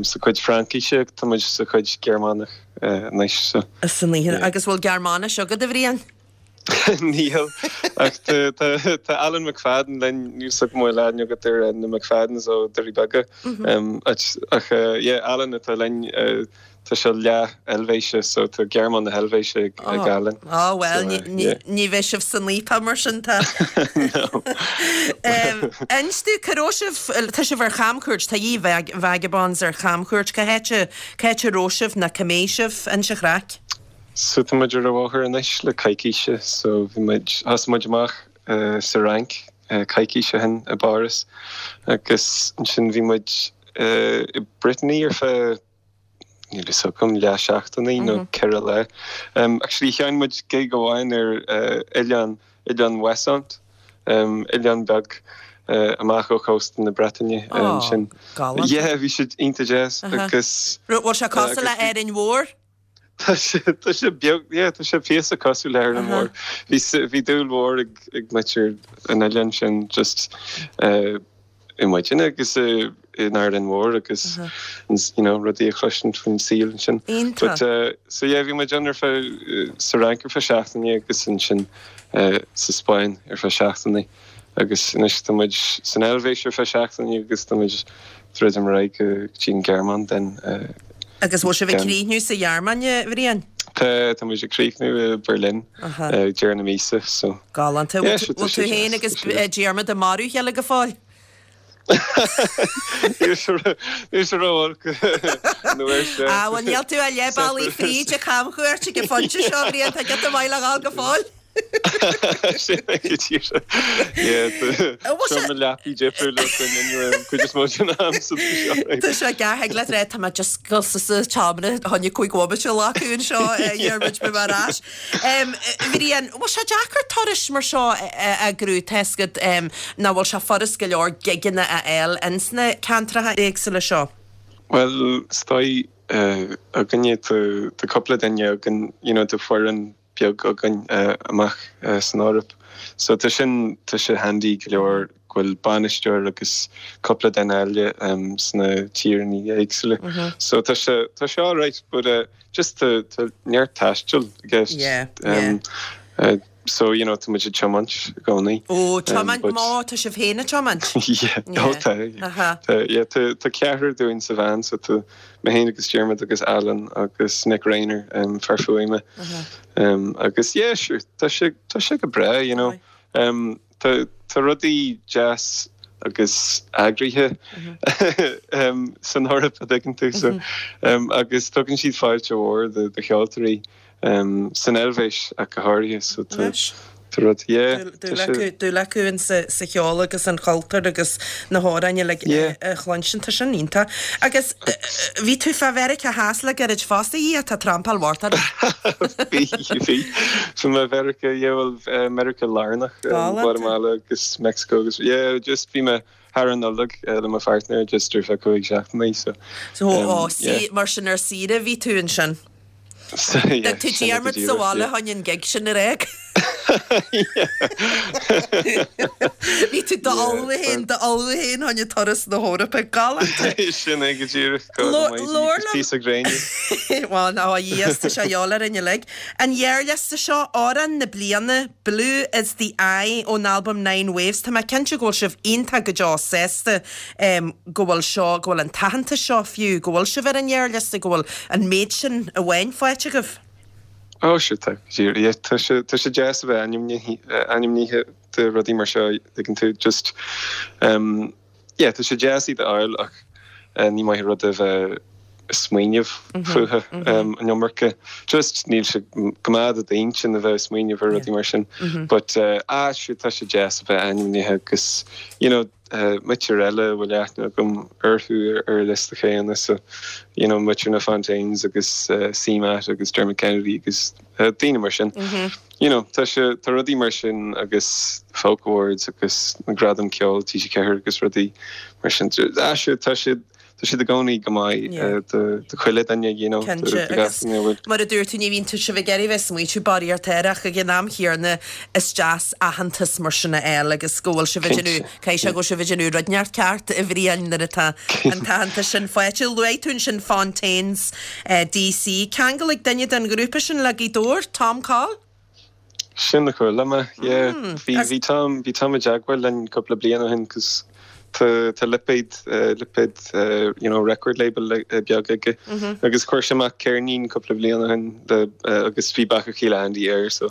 H: sa chuid Fraincise, tá muid sa chuid Gearmánach anois so.
A: San oíche.
H: Yeah.
A: Agus bhfuil Gearmáinis agat, a Bhriain?
H: Níl, ach tá Alan McFadden linn, níl 's agam an bhfuil aithne agat ar na McFaddens ó Doirí Beaga. Ach yeah, Alan atá linn. Tá sé leath Eilvéise so tá Gearmáin na hEilvéise ag Alan.
A: Á bhuel, ní bheidh sibh san fhaopach mar sin tá.
H: No.
A: Inis domh, cá raibh sibh, tá sibh ar chamchuairt, tá Ye Vagabonds ar chamchuairt, cá háit a, cá háit a raibh sibh nó cá mbeidh sibh, inis an chraic.
H: So tá muid ar an bhóthar anois le coicíse so bhí muid, thosaigh muid amach sa Fhrainc coicís ó shin i bPáras agus ansin bhí muid i Brittany ar feadh níl fhios agam, leath seachtaine nó 4 lá. Actually sheinn muid gig amháin ar oileán, Oileán Ouessant, oileán beag amach ó chósta na Breataine ansin.
A: Galánta.
H: Yeah, bhí sé iontach deas agus.
A: Bhfuil sé cosúil le Árainn Mhór?
H: Tá sé, tá sé beag, yeah, tá sé píosa cosúil le hÁrainn Mhór. Bhí, bhí dúil mhór ag, ag muintir an oileáin sin just i muidinne agus in Árainn Mhór agus you know rudaí a chloisint faoin saol ansin.
A: Iontach.
H: But so yeah bhí muid ann ar feadh sa Fhrainc ar feadh seachtaine agus ansin sa Spáinn ar feadh seachtaine agus anois tá muid san Eilvéis ar feadh seachtaine agus tá muid druidim ar aghaidh go dtí an Ghearmáin then.
A: Agus bhfuil sibh ag críochnú sa Ghearmáin, a Bhriain?
H: Tá, tá muid ag críochnú i Berlin ag deireadh na míosa, so.
A: Galánta.
H: Yeah,
A: Bhfuil tú féin agus Diarmuid ag marú a chéile go fóill?
H: Níl sé ró-olc an uair seo.
A: Ah, bhuel níl tú ach leath bealaigh fríd an chamchuairt ag an phointe seo, a Bhriain, tá giota maith le dhul go fóill.
H: Sin é go díreach. Yeah, tá seomra leapaí difriúil againn inniu an chuid is mó den am so tá sé alright.
A: Tá sé gearr, thig leat rá tá mé just ag dul suas sa tseomra fá choinne 5 bhomaite a ghlacadh anseo Dhiarmuid beidh mé ar ais. Bhriain, bhfuil sé deacair turais mar seo a eagrú, tá fhios agat nach bhfuil sé furast go leor gigeanna a fháil ins na ceantracha éagsúla seo?
H: Bhuel, is dóigh againne tá cúpla duine againn, you know, tá foireann beag againn amach san Eoraip. So tá sin, tá sé handy go leor go bhfuil bainisteoir agus cúpla duine eile sna tíreanna éagsúla. So tá sé, tá sé alright but just tá, tá neart taistil i gceist.
A: Yeah, yeah.
H: So you know tá muid ag tiomáint i gcónaí.
A: Ó, tiomáint, má tá sibh féin ag tiomáint?
H: Yeah, ó tá, yeah. Tá, yeah, tá, tá ceathrar dúinn sa veain so tá mé féin agus Diarmuid agus Alan agus Nick Rayner, fear fuaime. Agus yeah, sure, tá sé, tá sé go breá, you know. Tá, tá rudaí deas agus eagraithe san Eoraip, a dtuigeann tú, so, agus tugann siad fáilte mhór do, do cheoltóirí. San Eilvéis ach go háirithe, so tá rud, yeah, tá
A: sé. Dúil acu in sa cheol agus an chultúr agus na hamhráin uilig a chluinstin, tá sin iontach. Agus bhí tú fá Mheiriceá Theas le gairid fosta, a Dhia, tá trampáil mhór ort.
H: Bhí, bhí. Bhí mé i Mheiriceá, yeah, bhuel, Meiriceá Lárnach, Guatamala agus Meicsiceo agus, yeah, just bhí mé thar an Nollaig le mo pháirtnéir just ar feadh 5 seachtainí, so,
A: So, yeah. Mar sin ar saoire a bhí tú ansin? D'fhág tú Diarmuid sa bhaile fá choinne an gig sin ar aghaidh. Bhí tú d'ullmhú féin, d'ullmhú féin fá choinne turas na hEorpa. Galánta.
H: Sin é go díreach. God almighty. Labhair liom. Píosa gréine.
A: Bhuel, ná a Dhia, tá sé de dhíobháil orainn uilig. An ghearrliosta seo, Amhrán na Bliana, Blue is the Eye ón albam Nine Waves. Tá mé cinnte go bhfuil sibh iontach go deo sásta go bhfuil seo, go bhfuil an t-aitheantas seo fiú, go bhfuil sibh ar an ghearrliosta, go bhfuil an méid sin amháin faighte agaibh.
H: Ó, sure, tá, yeah, tá sé, tá sé deas a bheith ainmnithe, ainmnithe do rudaí mar seo, tuigeann tú, just, um, yeah, tá sé deas iad a fháil ach ní maith an rud é bheith ag smaoineamh fúthu an iomarca. Just níl sé go maith do d'intinn a bheith ag smaoineamh ar rudaí mar sin. But, ah, sure, tá sé deas a bheith ainmnithe agus, you know, muintir eile a bhfuil aithne agam orthu ar an liosta chéanna so you know muintir na Fontaines agus CMAT agus Dermot Kennedy agus daoine mar sin. You know tá sé tá rudaí mar sin agus Folk Awards agus na Gradaim Ceoil TG4 agus rudaí mar sin. Ah sure tá siad Tá siad i gcónaí go maith do chuile dhuine, you know, do
A: Cinnte,
H: gach
A: agus
H: duine a bhfuil.
A: mar a dúirt tú, ní bhíonn tú sibh ag iarraidh bheith ag smaoitiú barraíocht air ach ag an am chéanna is deas aitheantas mar sin a fháil agus go bhfuil sibh ag déanamh,
H: Cinnte,
A: caithfidh sé go bhfuil sibh ag déanamh rud inteacht ceart a Bhriain nuair atá an t-aitheantas sin faighte. Luaigh tú ansin Fontaines DC. Ceangal ag duine den ghrúpa sin le Gaoth Dobhair, Tom Coll?
H: Sin a chuala mé, yeah. Bhí, bhí Tom, bhí Tom i dteagmháil linn cúpla bliain ó shin 'cause tá, tá lipéad, lipéad, you know, record label beag aige agus chuir sé amach ceirnín cúpla bliain ó shin le, agus bhí Beacha Chíle Andy air so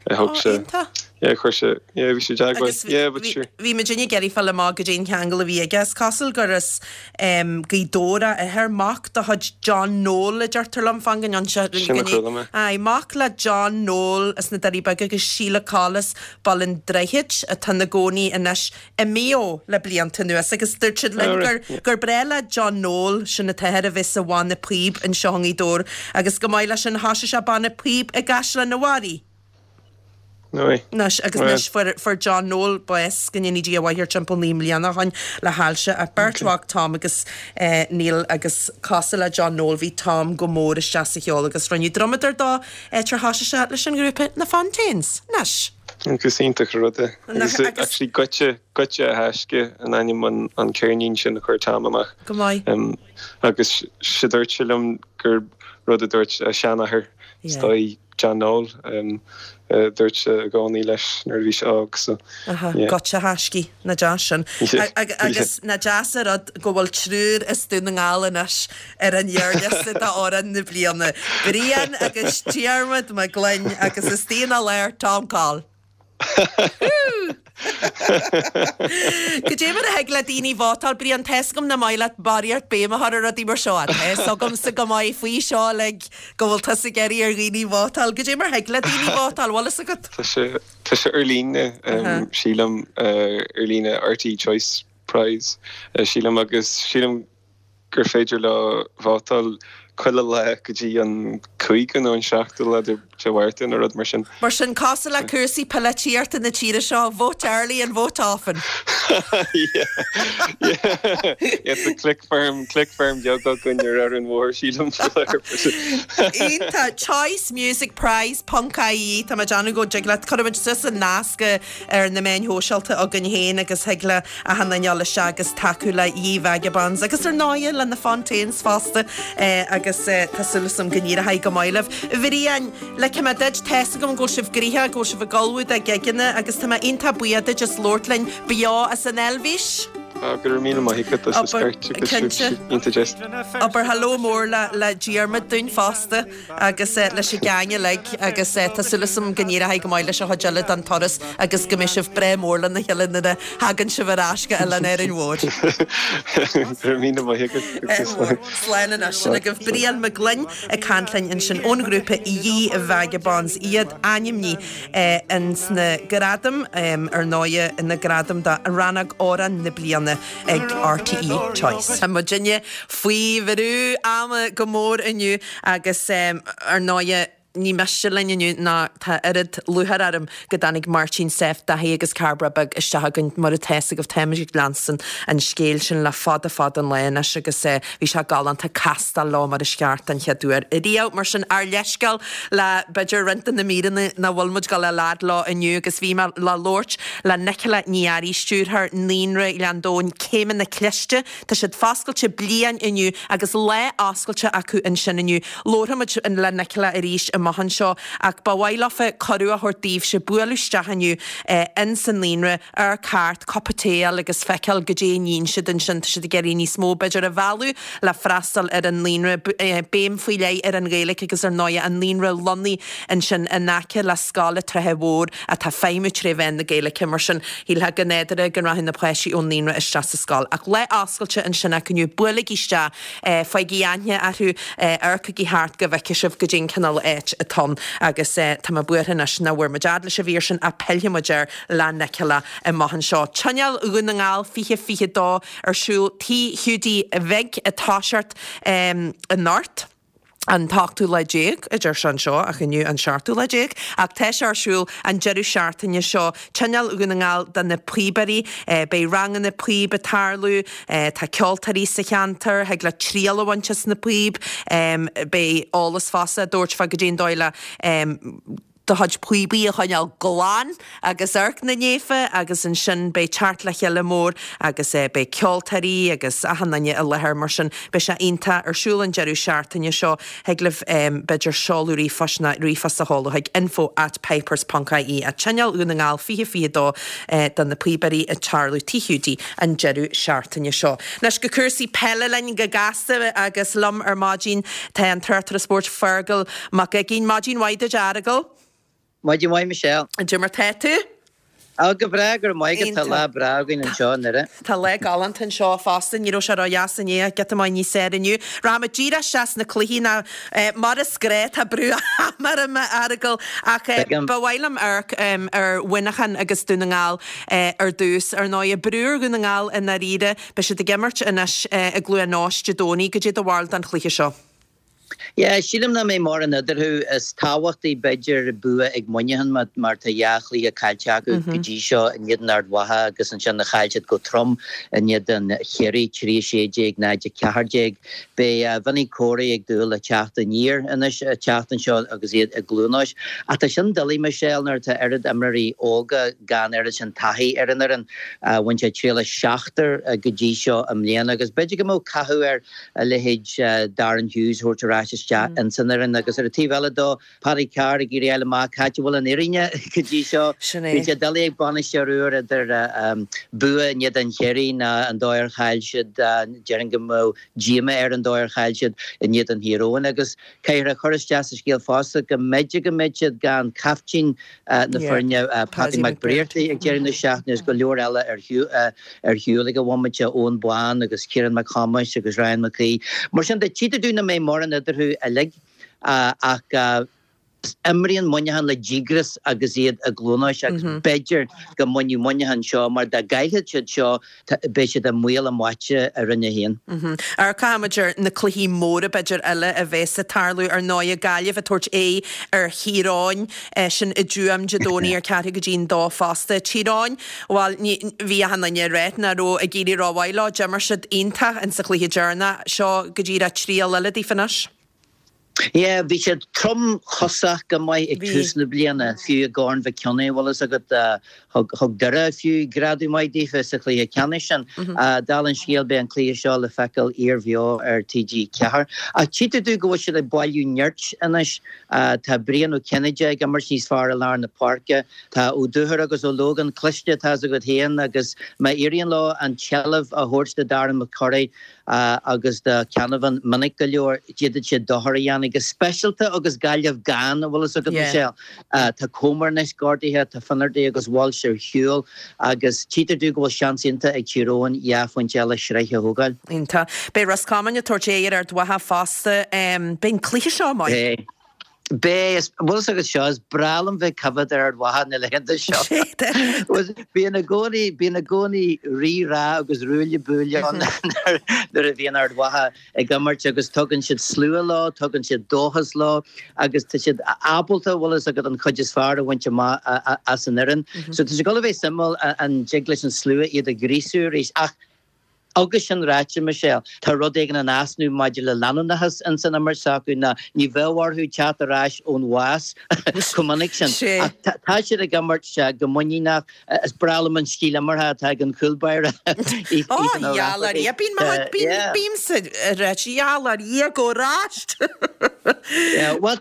H: thug
A: Ó,
H: sé,
A: iontach.
H: yeah, chuir sé, yeah, bhí sé i dteagmháil,
A: Agus
H: yeah, but
A: bhí,
H: sure.
A: bhí muidinne ag iarraidh fáil amach goidé an ceangal a bhí aige. Is cosúil gur as Gaoth Dobhair a athair, mac de chuid John Noel a deirtear liom, fan go ndéan
H: Sin a chuala mé.
A: Aye, mac le John Noel as na Doirí Beaga agus Sheila Coll as Baile an Droichid atá ina gcónaí anois i Maigh Eo le blianta anuas agus dúirt siad linn gur gur breá le John Noel, sin an t-athair, a bheith sa bhanna píob anseo i nGaoth Dobhair agus go maith leis sin thoisigh sé banna píob i gCaisleán an Bharraigh. Anois, agus anois fuair, fuair John Noel bás, go ndéanaí Dia a mhaith air, timpeall 9 mbliana ó shoin le hailse. Ach beirt mhac, Tom agus Neil, agus cosúil le John Noel, bhí Tom go mór isteach sa cheol agus rinneadh drumadóir dó tar thosaigh sé leis an ngrúpa Na Fontaines. Anois.
H: Agus iontach an rud é. Agus actually Goitse, Goitse a Thaisce an ainm an, an ceirnín sin a chuir Tom amach.
A: Go maith.
H: Agus sé dúirt sé liom gur rud a dúirt a sheanathair, is dóigh, John Noel, dúirt sé i gcónaí leis nuair a bhí sé óg so
A: yeah. Goitse a thaiscidh, nach deas sin. Agus nach deas an rud go bhfuil triúr as Dún na nGall anois ar an ghearrliosta d'amhrán na bliana. Brian agus Diarmuid Mac Gloinn agus istigh ina lár Tom Coll. Cad é mar a thig le daoine vótáil, Brian, tá 'fhios agam nach maith leat barraíocht béim a chur ar rudaí mar seo, tá 'fhios agamsa go maith faoi seo uilig go bhfuil tusa ag iarraidh ar dhaoine vótáil. Cad é mar thig le daoine vótáil, bhfuil 'fhios agat?
H: Tá sé, tá sé ar líne, sílim, ar líne RTÉ Choice Prize, sílim, agus sílim gur féidir leo vótáil chuile lá go dtí an cúigiú nó an seachtú lá de Mhárta nó rud mar sin.
A: Mar sin, cosúil le cúrsaí polaitíochta na tíre seo, vote early and vote often.
H: Yeah, yeah, yeah, tá click farm, click farm beag againn ar Árainn Mhór, sílim.
A: Iontach! Choice Music Prize ponc ie, tá mé ag déanamh go dtig leat, cuirfimid suas an nasc ar na meáin shóisialta againn féin agus thig le achan duine dul isteach agus tacú le Ye Vagabonds agus ar ndóighe le na Fontaines fosta agus tá súil agam go n-éireoidh go maith libh. A Bhriain, ligfidh mé duit, tá 'fhios agam go bhfuil sibh gnoitheach, go bhfuil sibh ag ullmhú do gigeanna agus tá mé iontach buíoch duit as labhairt linn beo as an Eilvéis.
H: Go raibh míle maith agat as an scoirt agus sibh iontach deas.
A: Abair hello mór le Diarmuid dúinn fosta. agus leis an gang uilig agus tá súil agam go n-éireoidh go maith leis an chuid eile den turas agus go mbeidh sibh breá mór lena chéile nuair a thagann sibh ar ais go Oileán Árainn Mhór.
H: Go raibh míle maith agat agus slán.
A: Slán anois. Sin agaibh Brian Mac Gloinn ag caint linn ansin ón ghrúpa Ye Vagabonds, iad ainmnithe ins na gradaim, ar ndóighe, na gradaim do Rannóg Amhrán na Bliana. ag RTÉ Choice. Tá muidinne faoi bhrú ama go mór inniu agus ar ndóighe ní miste linn inniu ná tá oiread lúcháir orm go dtáinig Máirtín, Seph, Daithí agus Cairbre Beag isteach againn. Mar atá fhios agaibh táimid ag leanstan an scéil sin le fada fada an lá anois agus bhí sé galánta castáil leo mar is ceart den chéad uair riamh. Mar sin ár leithscéal le b'fhéidir roinnt de na míreanna nach bhfuil muid ag dul a fhad leo inniu agus bhí mé le labhairt le Nicola Ní Fhearraigh, Stiúrthóir Naíonra Ghleann Domhain, Céimeanna Cliste. Tá siad foscailte bliain inniu agus lá oscailte acu ansin inniu. Labharfaidh muid le Nicola arís amach anseo ach ba mhaith leofa cuireadh a thabhairt daoibhse bualadh isteach inniu ins an naíonra, amharc thart, cupa tae a fháil agus feiceáil goidé a níonn siad ansin. Tá siad ag iarraidh níos mó b'fhéidir a mhealladh le freastal ar an naíonra, béim faoi leith ar an Ghaeilge agus ar ndóighe an naíonra lonnaithe ansin in aice le Scoil an Tsratha Mhóir atá ag feidhmiú tré mheán na Gaeilge. Mar sin, shílfeá go nádúrtha go rachadh na páistí ón naíonra isteach sa scoil. Ach lá oscailte ansin acu inniu, buailigí isteach, faighigí aithne orthu, amharcaigí thart go bhfeicfidh sibh goidé an cineál áit atá ann. Agus tá mé buartha anois nach bhfuair muid fhad leis an mhír sin ach pillfidh muid air le Nicola amach anseo. Tionól Dhún na nGall 2022 ar siúl Tigh Hiúdaí Bhig ag toiseacht anocht. an t-ochtú lá déag, a deir sé anseo, ach inniu an seachtú lá déag, ach tá sé ar siúl an deireadh seachtaine seo. Tionól Dhún na nGall do na píobairí. Beidh ranganna píob ag tarlú, tá ceoltóirí sa cheantar, thig leat triail a bhaint as na píob, beidh eolas fosta á dtabhairt fá goidé an dóigh le do chuid píobaí a choinneáil glan agus amharc na naofa agus ansin beidh teacht le chéile mór agus beidh ceoltóirí agus achan duine i láthair mar sin beidh sé iontach ar siúl an deireadh seachtaine seo. Thig libh b'fhéidir seoladh ríomhphoist nó ríomhphost a sheoladh chuig info at pipers ponc ie at Tionól Dhún na nGall 2022 do na píobairí ag tarlú Tigh Hiúdaí an deireadh seachtaine seo. Anois go cúrsaí peile linn go gasta agus liom ar maidin tá an tráchtaire spóirt Feargal Mac Uiginn. Maidin mhaith duit, a Fheargail.
G: Maidin mhaith, Michelle.
A: Cad é mar tá tú?
G: Á, go breá, go raibh maith agat. Tá lá breá againn anseo i nDoire.
A: Tá lá galánta anseo fosta. Ní raibh sé ró-dheas inné ach giota maith níos fearr inniu. Rachaimid díreach isteach sna cluichí ná mar is gnáth tá brú ama orm, a Fheargail, ach ba mhaith liom amharc ar Mhuineachán agus Dún na nGall ar dtús. Ar ndóigh, brú ar Dhún na nGall i ndáiríre. Beidh siad ag imirt anois i gCluain Eois Dé Domhnaigh. Goidé do bharúil don chluiche seo?
G: Yeah, sílim nach mbeidh mórán eadarthu. Is tábhachtaí, b'fhéidir, bua ag Muineachán mar tá dhá chluiche caillte acu go dtí seo in éadan Ard Mhacha agus ansin chaill siad go trom in éadan Chiarraí, 3 16, 0 14. Beidh Vinny Corey ag dúil le teacht aniar anois an tseachtain seo agus iad i gCluain Eois. Ach tá sin doiligh, Michelle, nuair atá oiread imreoirí óga gan oiread sin taithí ar an fhoireann. Bhain siad triail as seachtar go dtí seo i mbliana agus b'fhéidir go mbeadh cathú ar a leithéid Darren Hughes a thabhairt ar ais. ais isteach ins an fhoireann agus ar an taobh eile dó, Paddy Carr ag iarraidh a fháil amach cá háit a bhfuil an fhírinne go dtí seo.
A: Sin é.
G: Bíonn sé doiligh ag bainisteoir úr idir bua in éadan Chiarraí ná an dóigh ar chaill siad, déarfainn go mbeadh díomá air an dóigh ar chaill siad in éadan Thír Eoghain agus caithfear a chur isteach sa scéal fosta go mb'fhéidir go mbeidh siad gan caiftín na foirne, Paddy McBrearty ag deireadh na seachtaine agus go leor eile ar shiúl ag an bhomaite, Eoghan Bán agus Ciarán Mac Thomáis agus Ryan McGee. Mar sin de, tchítear dúinn nach mbeidh mórán eadarthu uilig ach imríonn Muineachán le díograis agus iad i gCluain Eois agus b'fhéidir go mbainfeadh Muineachán seo mar dá gcaillfeadh siad seo beidh siad i mbaol a mbáite i Roinn 1.
A: Amharcfaidh muid ar na cluichí móra b'fhéidir eile a bheas ag tarlú. Ar ndóighe Gaillimh ag tabhairt aghaidh ar Thír Eoghain, sin i dTuaim Dé Domhnaigh ar ceathrú go dtí'n dó fosta. Tír Eoghain, bhuel ní, bhí achan duine ag ráit nach raibh ag éirí rómhaith leo. D'imir siad iontach in sa chluiche deireanach. Seo go díreach triail eile daofa anois.
G: Yeah, bhí siad tromchosach go maith ag tús na bliana, fiú i gCorn Mhic Cionnaith, bhfuil fhios agat, thug Doire fiú greadadh maith daofa sa chluiche ceannais sin. Dála an scéil, beidh an cluiche seo le feiceáil iarbheo ar TG4. Ach tchítear domh go bhfuil siad ag bailiú nirt anois. Tá Brian Ó Cinnéide ag imirt níos fearr i lár na páirce. Tá Ó Dúchair agus Ó Lógáin cliste, tá fhios agat féin, agus má éiríonn leo an tseilbh a thabhairt do Darren McCurry, agus do Canavan minic go leor, d'fhéadfadh siad dochar a dhéanamh, go speisialta agus Gaillimh gann, an bhfuil fhios agat, Michelle. Tá Comer anois gortaithe, tá Finnerty agus Walsh ar shiúl agus tchítear domh go bhfuil seans iontach ag Tír Eoghain dhá phointe eile sraithe a thógáil.
A: Iontach. Beidh Ros Comáin ag tabhairt aghaidh ar Ard Mhacha fosta. Beidh an cluiche seo maith.
G: Beidh. Beidh, is, bhfuil fhios agat seo, is breá liom bheith ag coimhéad ar Ard Mhacha na laethanta seo. Bíonn i gcónaí, bíonn i gcónaí rí-rá agus ruaille buaille ann nuair a bhíonn Ard Mhacha ag imirt agus tugann siad slua leo, tugann siad dóchas leo agus tá siad ábalta, bhfuil fhios agat, an chuid is fearr a bhaint amach as an fhoireann. So tá sé ag dul a bheith suimiúil an dtig leis an slua iad a ghríosú arís ach Agus sin ráite, Michelle, tá rud éigin in easnamh maidir le leanúnachas ins an imirt s'acu, ná ní bheadh orthu teacht ar ais ón bhás chomh minic sin. Ach tá siad ag imirt go muiníneach. Is breá liom an stíl imeartha atá ag an chúl báire,
A: Ethan O'Rafferty. Bímse ag ráit, gheall ar Dhia go ais!
G: Bhuel,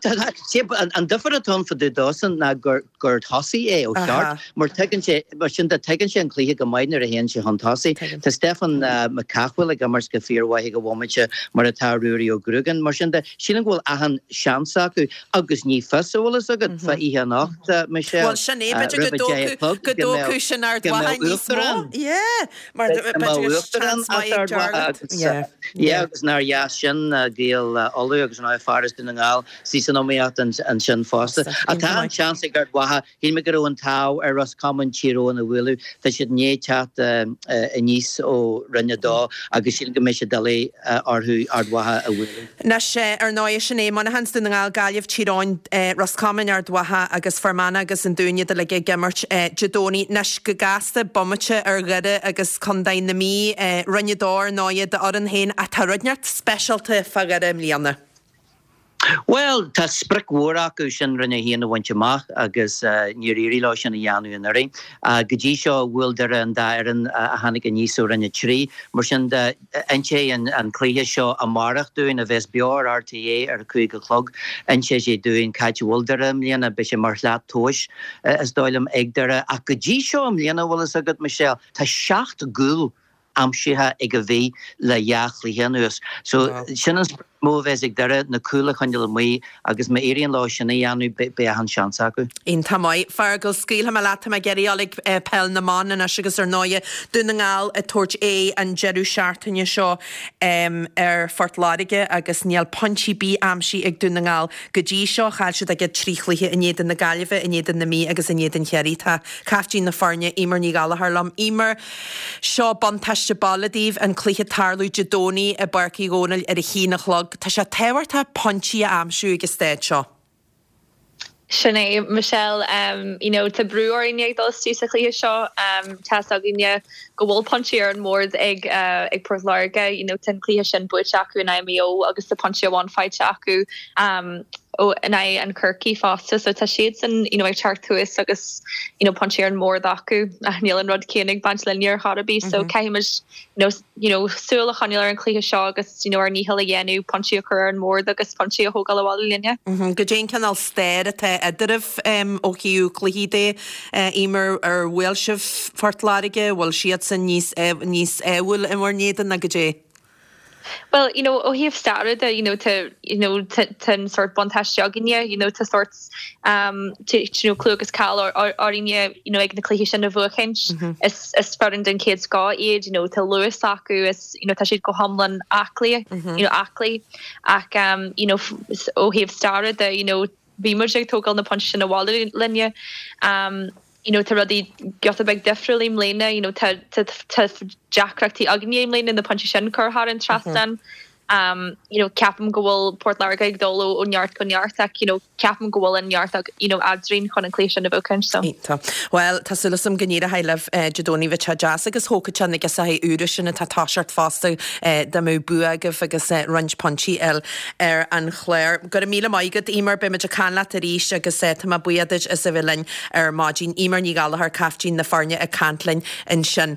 G: an difear atá ann fá dtaobh dósan ná gur gur tosaí é ó cheart, mar tuigeann sé, mar sin de, tuigeann sé an cluiche go maith nuair a théann sé chun tosaigh. Tá Stefan Mac Cathmhaoil ag imirt go fíormhaith ag an bhomaite, mar atá Ruairí Ó Gruagáin. Mar sin de, sílim go bhfuil achan seans acu agus ní fios, an bhfuil fhios agat, fá oíche anocht, Michelle,
A: Bhuel, sin é, b'fhéidir go
G: roimh a 10 a chlog,
A: go dtógfadh sin Ard Mhacha níos mó. Yeah, mar b'fhéidir go seans maith ag Jarlath.
G: Yeah, yeah, agus nár dheas sin, Gaeil Uladh agus an fear as Dún na nGall. Suí san iomaíocht ansin fosta. Ach tá an seans ag Ard Mhacha. Shíl mé go raibh an t-ádh ar Ros Comáin Tír Eoghain a bhualadh. Tá siad i ndiaidh teacht aníos ó Roinn 2 agus sílim go mbeidh sé doiligh orthu Ard Mhacha a bhualadh.
A: Anois, ar ndóigh, sin é, Muineachán 's Dún na nGall, Gaillimh, Tír Eoghain, Ros Comáin, Ard Mhacha agus Fear Manach agus an Dún iad uilig ag imirt Dé Domhnaigh. Anois, go gasta, bomaite ar Dhoire agus Contae na Mí, Roinn 2 ar ndóigh, d'fhoireann féin ach tá rud inteacht speisialta fá Dhoire i mbliana.
G: Bhuel, tá sprioc mhór acu sin Roinn 1 a bhaint amach agus níor éirigh leo sin a dhéanamh anuraidh. Go dtí seo, bhuail Doire an dá fhoireann a tháinig aníos ó Roinn 3. Mar sin de, inseoidh an cluiche seo amárach dúinn, a bheas beo ar RTÉ ar a 5 a chlog, inseoidh sé dúinn cá háit a bhfuil Doire i mbliana. Beidh sé mar shlat tomhais, is dóigh liom, ag Doire. Ach go dtí seo i mbliana, bhfuil fhios agat, Michelle, tá seacht gcúl aimsithe ag an Mhí le dhá chluiche anuas. So sin an sprioc is mó a bheas ag Doire, na cúil a choinneáil amuigh agus má éiríonn leo sin a dhéanamh beidh achan seans acu.
A: Iontach maith. Feargal, scaoilfidh mé leat, tá mé ag iarraidh dul ag Peil na mBan anois agus ar ndóighe Dún na nGall ag tabhairt aghaidh an deireadh seachtaine seo ar Phort Láirge agus níl pointe ar bith aimsithe ag Dún na nGall go dtí seo. Chaill siad a gcéad trí chluiche in éadan na Gaillimhe, in éadan na Mí agus in éadan Chiarraí. Tá caiftín na foirne, Eimear Ní Ghallchóir liom. Eimear, Seo buntáiste baile daoibh, an cluiche ag tarlú Dé Domhnaigh i bPáirc Uí Dhónaill ar a haon a chlog. Tá sé tábhachtach pointí a aimsiú ag an staid seo.
I: Sin é, Michelle. You know, tá brú orainne ag dul isteach sa chluiche seo. Tá's againne go bhfuil pointí ar an mbord ag ag Port Láirge. You know, tá an cluiche sin buaite acu in aghaidh Maigh Eo agus tá pointe amháin faighte acu. ó in aghaidh an Chorcaí fosta so tá siadsan you know ag teacht thuas agus you know pointí ar an mbord acu ach níl an rud céanna ag baint linne ar chor ar bith so caithfidh muid you know you know súil a choinneáil ar an chluiche seo agus you know ár ndícheall a dhéanamh pointí a chur ar an mbord agus pointí a thógáil abhaile linne.
A: Goidé an cineál stair atá eadraibh ó thaobh cluichí de, Eimear, ar bhuail sibh Phort Láirge, bhfuil siadsan níos níos ádhúil in bhur n-éadan ná goidé?
I: Bhuel, you know, ó thaobh staire de, you know, tá, you know, tá an sórt buntáiste againne, you know, tá sórt, um, you know, clú agus cáil orainne, you know, ag na cluichí sin a bhuachaint. Is, is foireann den chéad scoth iad, you know, tá luas acu, is, you know, tá siad go hiomlán aclaí, you know, aclaí. Ach, um, you know, ó thaobh staire de, you know, bhí muid ag tógáil na pointí sin abhaile linne. Um, you know, tá rudaí giota beag difriúil i mbliana, you know, tá, tá, tá deacrachtaí againne i mbliana na pointí sin a chur thar an trasnán. Um, you know, ceapaim go bhfuil Port Láirge ag dul ó, ó neart go neart ach, you know, ceapaim go bhfuil an neart ag, you know, eadrainn chun an cluiche sin a bhuachaint, so.
A: Iontach. Bhuel, tá súil agam go n-éireoidh libh Dé Domhnaigh, bheadh sé deas agus thógfadh sé na girseachaí úra sin atá ag toiseacht fosta dá mbeadh bua agaibh agus roinnt pointí eile ar an chlár. Go raibh míle maith agat, Eimear. Beidh muid ag caint leat arís agus tá mé buíoch duit as a bheith linn ar maidin. Eimear Ní Ghallchóir, caiftín na foirne ag caint linn ansin.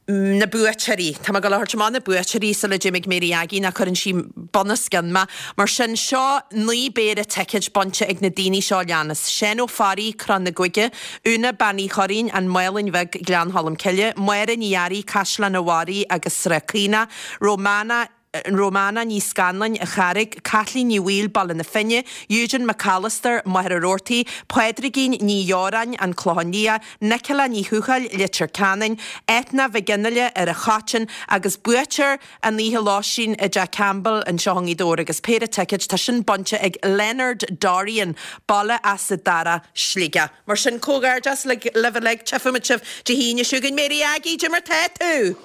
A: Na buaiteoirí. Tá mé ag dul a thabhairt amach na buaiteoirí sula dtéim ag Mary Aggie nó cuireann sí bunoscionn mé. Mar sin, seo 9 bpéire ticéid bainte ag na daoine seo a leanas, Seán Ó Fearraigh, Crann na Guaire, Úna Bean Uí Churraoin, An Mhálainn Bheag, Gleann Cholm Cille, Máire Ní Fhearraigh, Caisleán an Bharraigh agus Srath Caonach, Romana, Romana Ní Scanláin, An Charraig, Caitlín Ní Bhaoill, Baile na Finne, Eugene McAllister, Machaire Rabhartaigh, Pádraigín Ní Dheoráin, An Clochán Liath, Nicola Ní Thuathail, Leitir Ceanainn, Eithne Mhic Fhionnghaile, Ar an Choiteann, agus buaiteoir an oíche lóistín i dTeach Campbell anseo i ngaoth Dobhair agus péire ticéid, tá sin bainte ag Leonard Dorrian, Baile Easa Dara, Sligeach. Mar sin, comhghairdeas libh uilig, tchífimid sibh Dé hAoine seo chugainn. Mary Aggie, cad é mar tá tú?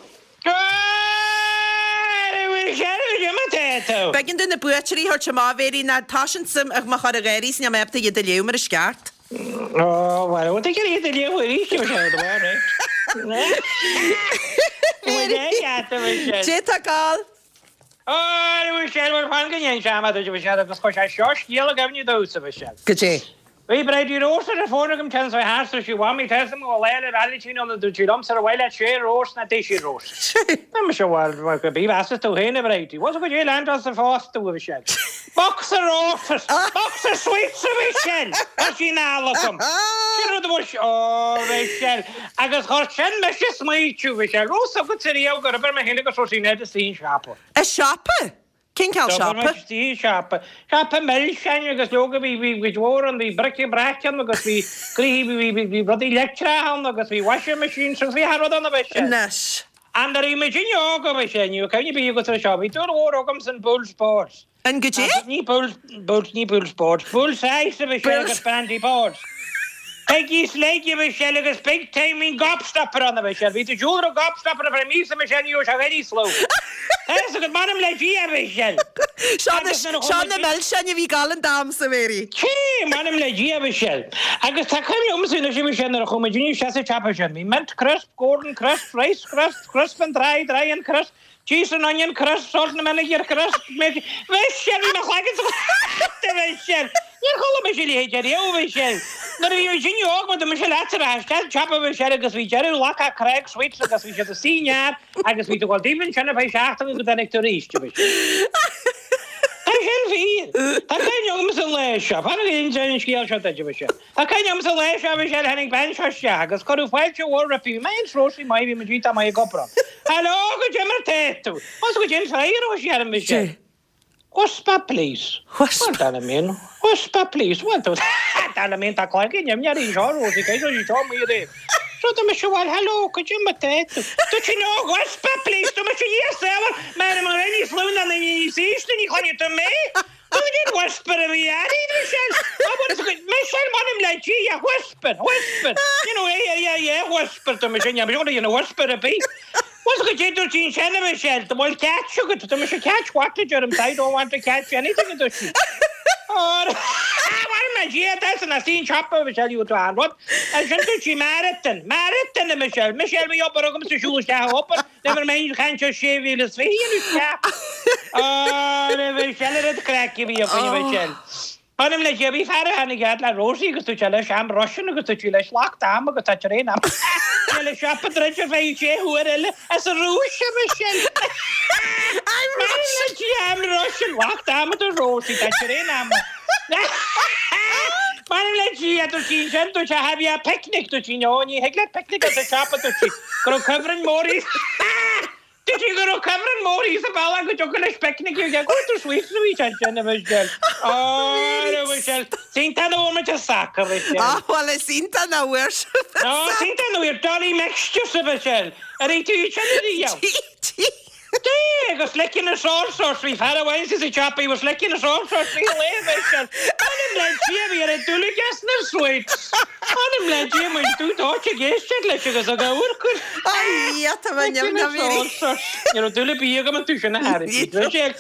A: B'éigean domh na buaiteoirí a thabhairt amach, a Mhéirí, nó tá sin suim ag mo chur ag gáirí is níl mé ábalta iad a léamh mar is ceart.
J: Ó, bhuel, bhfuil tú ag iarraidh iad a léamh arís, a Mhichelle, do bharr, eh?
A: Dé tá gal.
J: Ó, a Mhichelle, bhuel, fan go n-inseoidh mé duit, a Mhichelle, agus chuir sé seo scéal i gcuimhne domhsa, a Mhichelle.
A: Goidé?
J: Bhí Bridie Rós ar an bhfón agam téann sé thart is sí Mhamaí tá 'fhios agam go bhfuil Lá 'le Vailintín ann a dúirt sí liomsa ar mhaith leat sé rós ná deich rós. Tá mise bhuel bhuel go bith mheasas tú féin a Bridie. Bhuel so goidé lean tusa fosta a Mhichelle. Box of roses! Box of sweets a Mhichelle! Tá sí in ann agam. Sin rud a bhfuil sí Ó Mhichelle agus chuir sin mise ag smaoitiú Mhichelle. Raibh 'fhios agatsa riamh gur oibir mé féin agus Róisín Ned istigh i siopa.
A: I siopa? Cén cineál siopa?
J: Istigh i siopa. Siopa milseáin agus leoga bhí bhí cuid mhór ann, bhí bric-a-brac ann agus bhí gnoithí bhí bhí bhí rudaí leictreacha ann agus bhí washing machines agus bhí achan rud ann a Mhichelle.
A: Anois.
J: And nuair a bhí muidinne óg a Mhichelle, ní raibh cuimhne ar bith agat ar seo, bhí dúil mhór agamsa in Bulls Boards.
A: In goidé?
J: Ní Bulls, Bulls, ní Bulls Boards, Bulls Eyes a Mhichelle agus Brandy Boards. Peggy's Leg a Mhichelle agus Big Time bhí an Gobstopper ann a Mhichelle. Bhí tú ag siúl ar an Gobstopper ar feadh míosa a Mhichelle ní raibh sé very slow. Tá fhios agat, m'anam le Dia a Mhichelle.
A: Seo na, seo na milseáin a bhí ag gabháil an t-am a Mhéirí.
J: Cé, m'anam le Dia a Mhichelle. Agus tá cuimhne agamsa anois a Mhichelle nuair a chuaigh muid isteach sa tsiopa sin. Bhí mint crisp, golden crisp, rice crisp, crisp and dry, dry and crisp, Cheese and onion crisp, salt and vinegar crisp, Mhichelle, bhí mo chloigeann sa a Mhichelle! Níor chuala mise a leithéid ariamh, a Mhichelle! Nuair a bhí muid óg, mar dúirt mise leatsa, rachaidh isteach an tsiopa, a Mhichelle, agus bhí deireadh Lockhart Craig Sweets agus bhí siad istigh i ngearr agus bhí tú ag dul daoibh ansin ar feadh seachtaine go dtáinig tú arís, a Mhichelle. Tá sin fíor! Tá cuimhne agamsa an lá seo, fan go n-inseoidh an scéal seo duit, a Mhichelle. Tá cuimhne agamsa an lá seo bhí sé tháinig bean seo isteach agus cuireadh fáilte mhór roimpi. Bhí mé féin is Róisín maith, bhí muid iontach maith ag obair ann. Hello, goidé mar tá tú. Bhfuil 'fhios agat goidé an freagra a thug sí orm Michelle. Whisper please. Whisper. Bhuel, dar liom féin, whisper please. Bhuel, tá, dar liom féin, tá cloigeann imní uirthi anseo, Róisín, cé go raibh sí seo amuigh aréir. So tá mise, bhuel, hello, goidé mar tá tú. Dúirt sí, no, whisper please. Tá mise, yes, well, mar an raibh níos lú ná níos ísle, ní chluinfidh tú mé. Cén whisper a bhí uirthi, Michelle? Michelle, m'anam le Dia, whisper, whisper. You know, yeah, yeah, yeah, whisper tá mise, níl mise ag déanamh whisper ar bith. Bhfuil 'fhios agat goidé dúirt sí ansin, a Michelle, an bhfuil catch agat, tá mise catch what a deirim, I don't want to catch anything a dúirt sí. M'anam le Dia, that's an asín siopa, Michelle, you to an rud. Ansin dúirt sí marathon, marathon, a Michelle, Michelle, bhí obair agamsa siúl isteach a obair. Never mind caint ar 6,020 isteach. Á, a Mhichelle, an oiread craic a bhí againn, a Mhichelle. M'anam le Dia, bhí fear a tháinig fhad le Rosie agus dúirt sé leis, I'm Russian agus dúirt sí leis, Locked am agus tá traein am. Bhí le siopa druidte ar feadh sé huair eile as an Rúis, a Michelle.
A: I'm
J: M'anam le Dia, I'm Russian, locked am a dúirt Rosie, tá traein am. M'anam le Dia, dúirt sí ansin, dúirt sé, have you a picnic? Dúirt sí, no, ní thig leat picnic as an siopa, dúirt sí, go raibh cuibhreann mór Dúirt sí go raibh cuibhreann mór thíos an bealach go dtiocfadh leis picnic a dhéanamh. Go to sweets a bhí sé ansin, a Mhichelle. Ó, a Mhichelle. Is iontach nach bhfuair muid an sacar, a Mhichelle.
A: Á, bhuel, is iontach nach bhfuair sibh an
J: Ó, is iontach nach bhfuair Dolly Mixtures, a Mhichelle. Ar ith tú iad sin ariamh?
A: D'ith, d'ith.
J: D'ith, agus licking us all sorts. Bhí fear amháin sa siopa, he was licking us all sorts bhí lae, a Mhichelle. M'anam le Dia, bhí ar an dúlagas na sweets. M'anam le Dia, muid dúdóite ag éisteacht leis agus ag amharc air.
A: Ai, tá mé neamh
J: Ní raibh dúil ar bith agam iontu sin a thairfeadh. Michelle,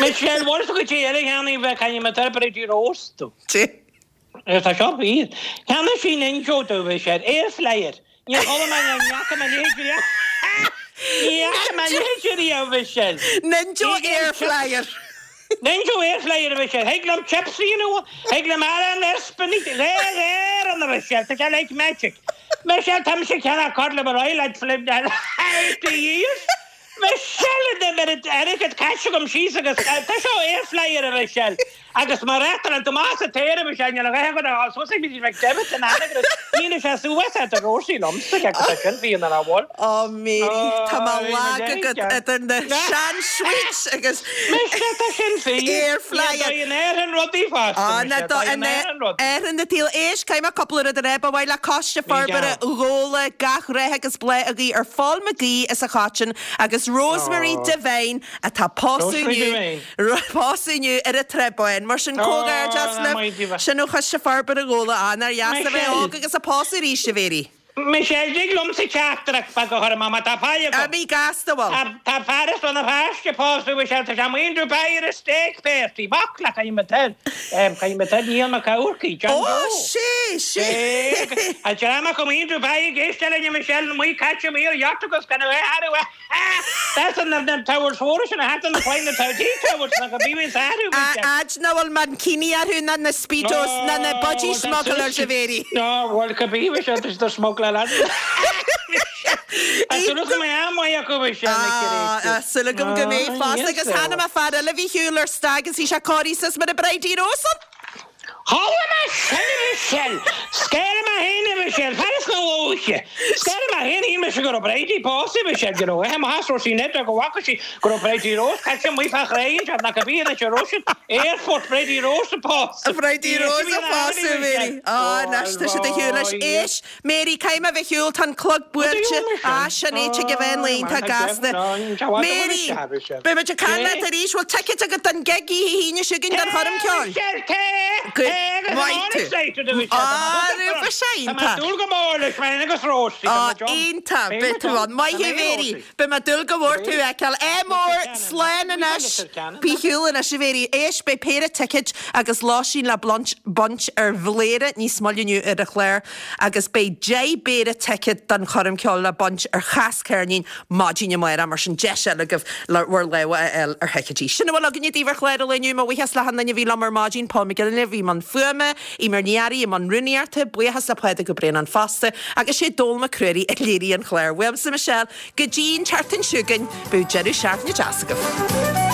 J: Michelle, bhfuil tú go dtí eile cheana bheith caint mé tar Bridie Rose tú. Tá seo fíor. Cheannaigh sí Ninjo domh, Michelle. Air flyer. Níor chuala mé ní fhaca mé a leithéid riamh. Ní fhaca mé a leithéid riamh, Michelle.
A: Ninjo Air Flyer.
J: Ninjo Air Flyer, a Mhichelle. Thig liom chips a dhéanamh, thig liom arán a spinach, dhá ghearr ann, a Mhichelle. Tá sé like magic. Michelle, tá mise ag ceannach cod liver oil I'd flip that 80 years. Michelle, in the minute, airgead caite agam síos agus tá seo Air Flyer, a Mhichelle. Agus má reáchtálann Tomás an t-aer, a Mhichelle, níl a dhath agat a fháil suas ag McDevitt in Anagaire. Níl sé suas at Rosie liomsa, agus tá sin fíon ar a bhfuil.
A: Ó Mary, tá mé lag agat idir na sean-sweets agus
J: Mise, tá sin fíor.
A: Air flyer.
J: Ní dóigh in Éirinn rudaí fosta,
A: Á,
J: mise,
A: ná dóigh in Éirinn na taobh. Éist, caithfidh mé cúpla rud a rá. Ba mhaith le Coiste Forbartha Ghabhla gach rath agus bláth a ghuí ar Phól Mag Aoidh as an Choitín agus Rosemary Devine atá pósadh inniu. Pósadh inniu ar an Trá Báin. Mar sin, comhghairdeas libh. Sin ó Choiste Forbartha Ghabhla. Á, nár dheas a bheith óg agus ag pósadh arís, a Mhéirí.
J: Michelle, Dtig liomsa teachtaireacht beag a chur amach má tá faill agam.
A: Imigh gasta, bhuel.
J: Tá fear as Rann na Feirste ag pósadh, Michelle, tá sé amuigh in Dubai ar a steak party. Baicle, caithfidh mé toil. Caithfidh mé toil, Niall Mac Eamharcaigh, John
A: Ó,
J: Joe.
A: sé, sé.
J: An dream acu amuigh in Dubai ag éisteacht linn, a Michelle, amuigh caite amuigh ar yacht agus gan a bheith thar a That's an na towers mhóra sin a thagann na fine na T towers na go bíonn is athrú
A: A fhad nach bhfuil mankini orthu ná na speedos ná na budgie smugglers a Mhéirí.
J: Ná bhfuil go bí bhí siad is smuggler Tá súil go mbeidh am maith acu bhí sé na
A: Tá súil agam go mbeidh fosta agus chonaic mé fear eile a bhí ar shiúl ar stag is bhí sé cóirithe suas mar an Bridie Rose ann.
J: Chuala mé sin, a Mhichelle! Scair mé féin, a Mhichelle! Fear sna lóithe! Scair mé féin, shíl mise go raibh Bridie pósta, a Mhichelle, go raibh aithe maith as Róisín Ned go bhfaca sí go raibh Bridie Rose caite amuigh fá chré anseo, nach a bhí anois a Róisín, Airport Bridie Rose ag pósadh!
A: Bridie Rose ag pósadh, Mary. Á, anois tá siad ar shiúl leis. Éist, Mary, caithfidh mé a bheith ar shiúl, tá an clog buailte. Á, sin é, tigh a bheith an lae, tá gasta. Mary, beidh muid ag caint leat arís, bhfuil ticéid agat don gig oíche hAoine seo chugainn don choirm ceoil? Go maith tú. Á, bheadh sé iontach. Á, iontach, beidh tú ann. Maith thú, Mary. Beidh mé ag dúil go mór tú a fheiceáil. Ádh mór, slán anois. Bí ar shiúl anois, a Mhéirí. Éist, beidh péire ticéid agus lóistín le baint ar Bhléire níos moille inniu ar an chlár agus beidh 10 bpéire ticéad don choirm ceoil le baint ar Chas Ceirnín maidin amárach, mar sin deis eile agaibh le bhur lámha a fháil ar thicéidí. Sin a bhfuil againne daoibh ar chlár an lae inniu. Mo bhuíochas le hachan duine a bhí liom ar maidin, Paul McGinley a bhí i mbun fuaime, Eimear Ní Fhearraigh i mbun rúnaíochta, buíochas le Pádraig Ó Braonáin fosta, agus sé Dónall Mac Ruairí a léirigh an clár. Uaimse Michelle, go dtí an tseachtain seo chugainn, bíodh deireadh seachtaine deas agaibh.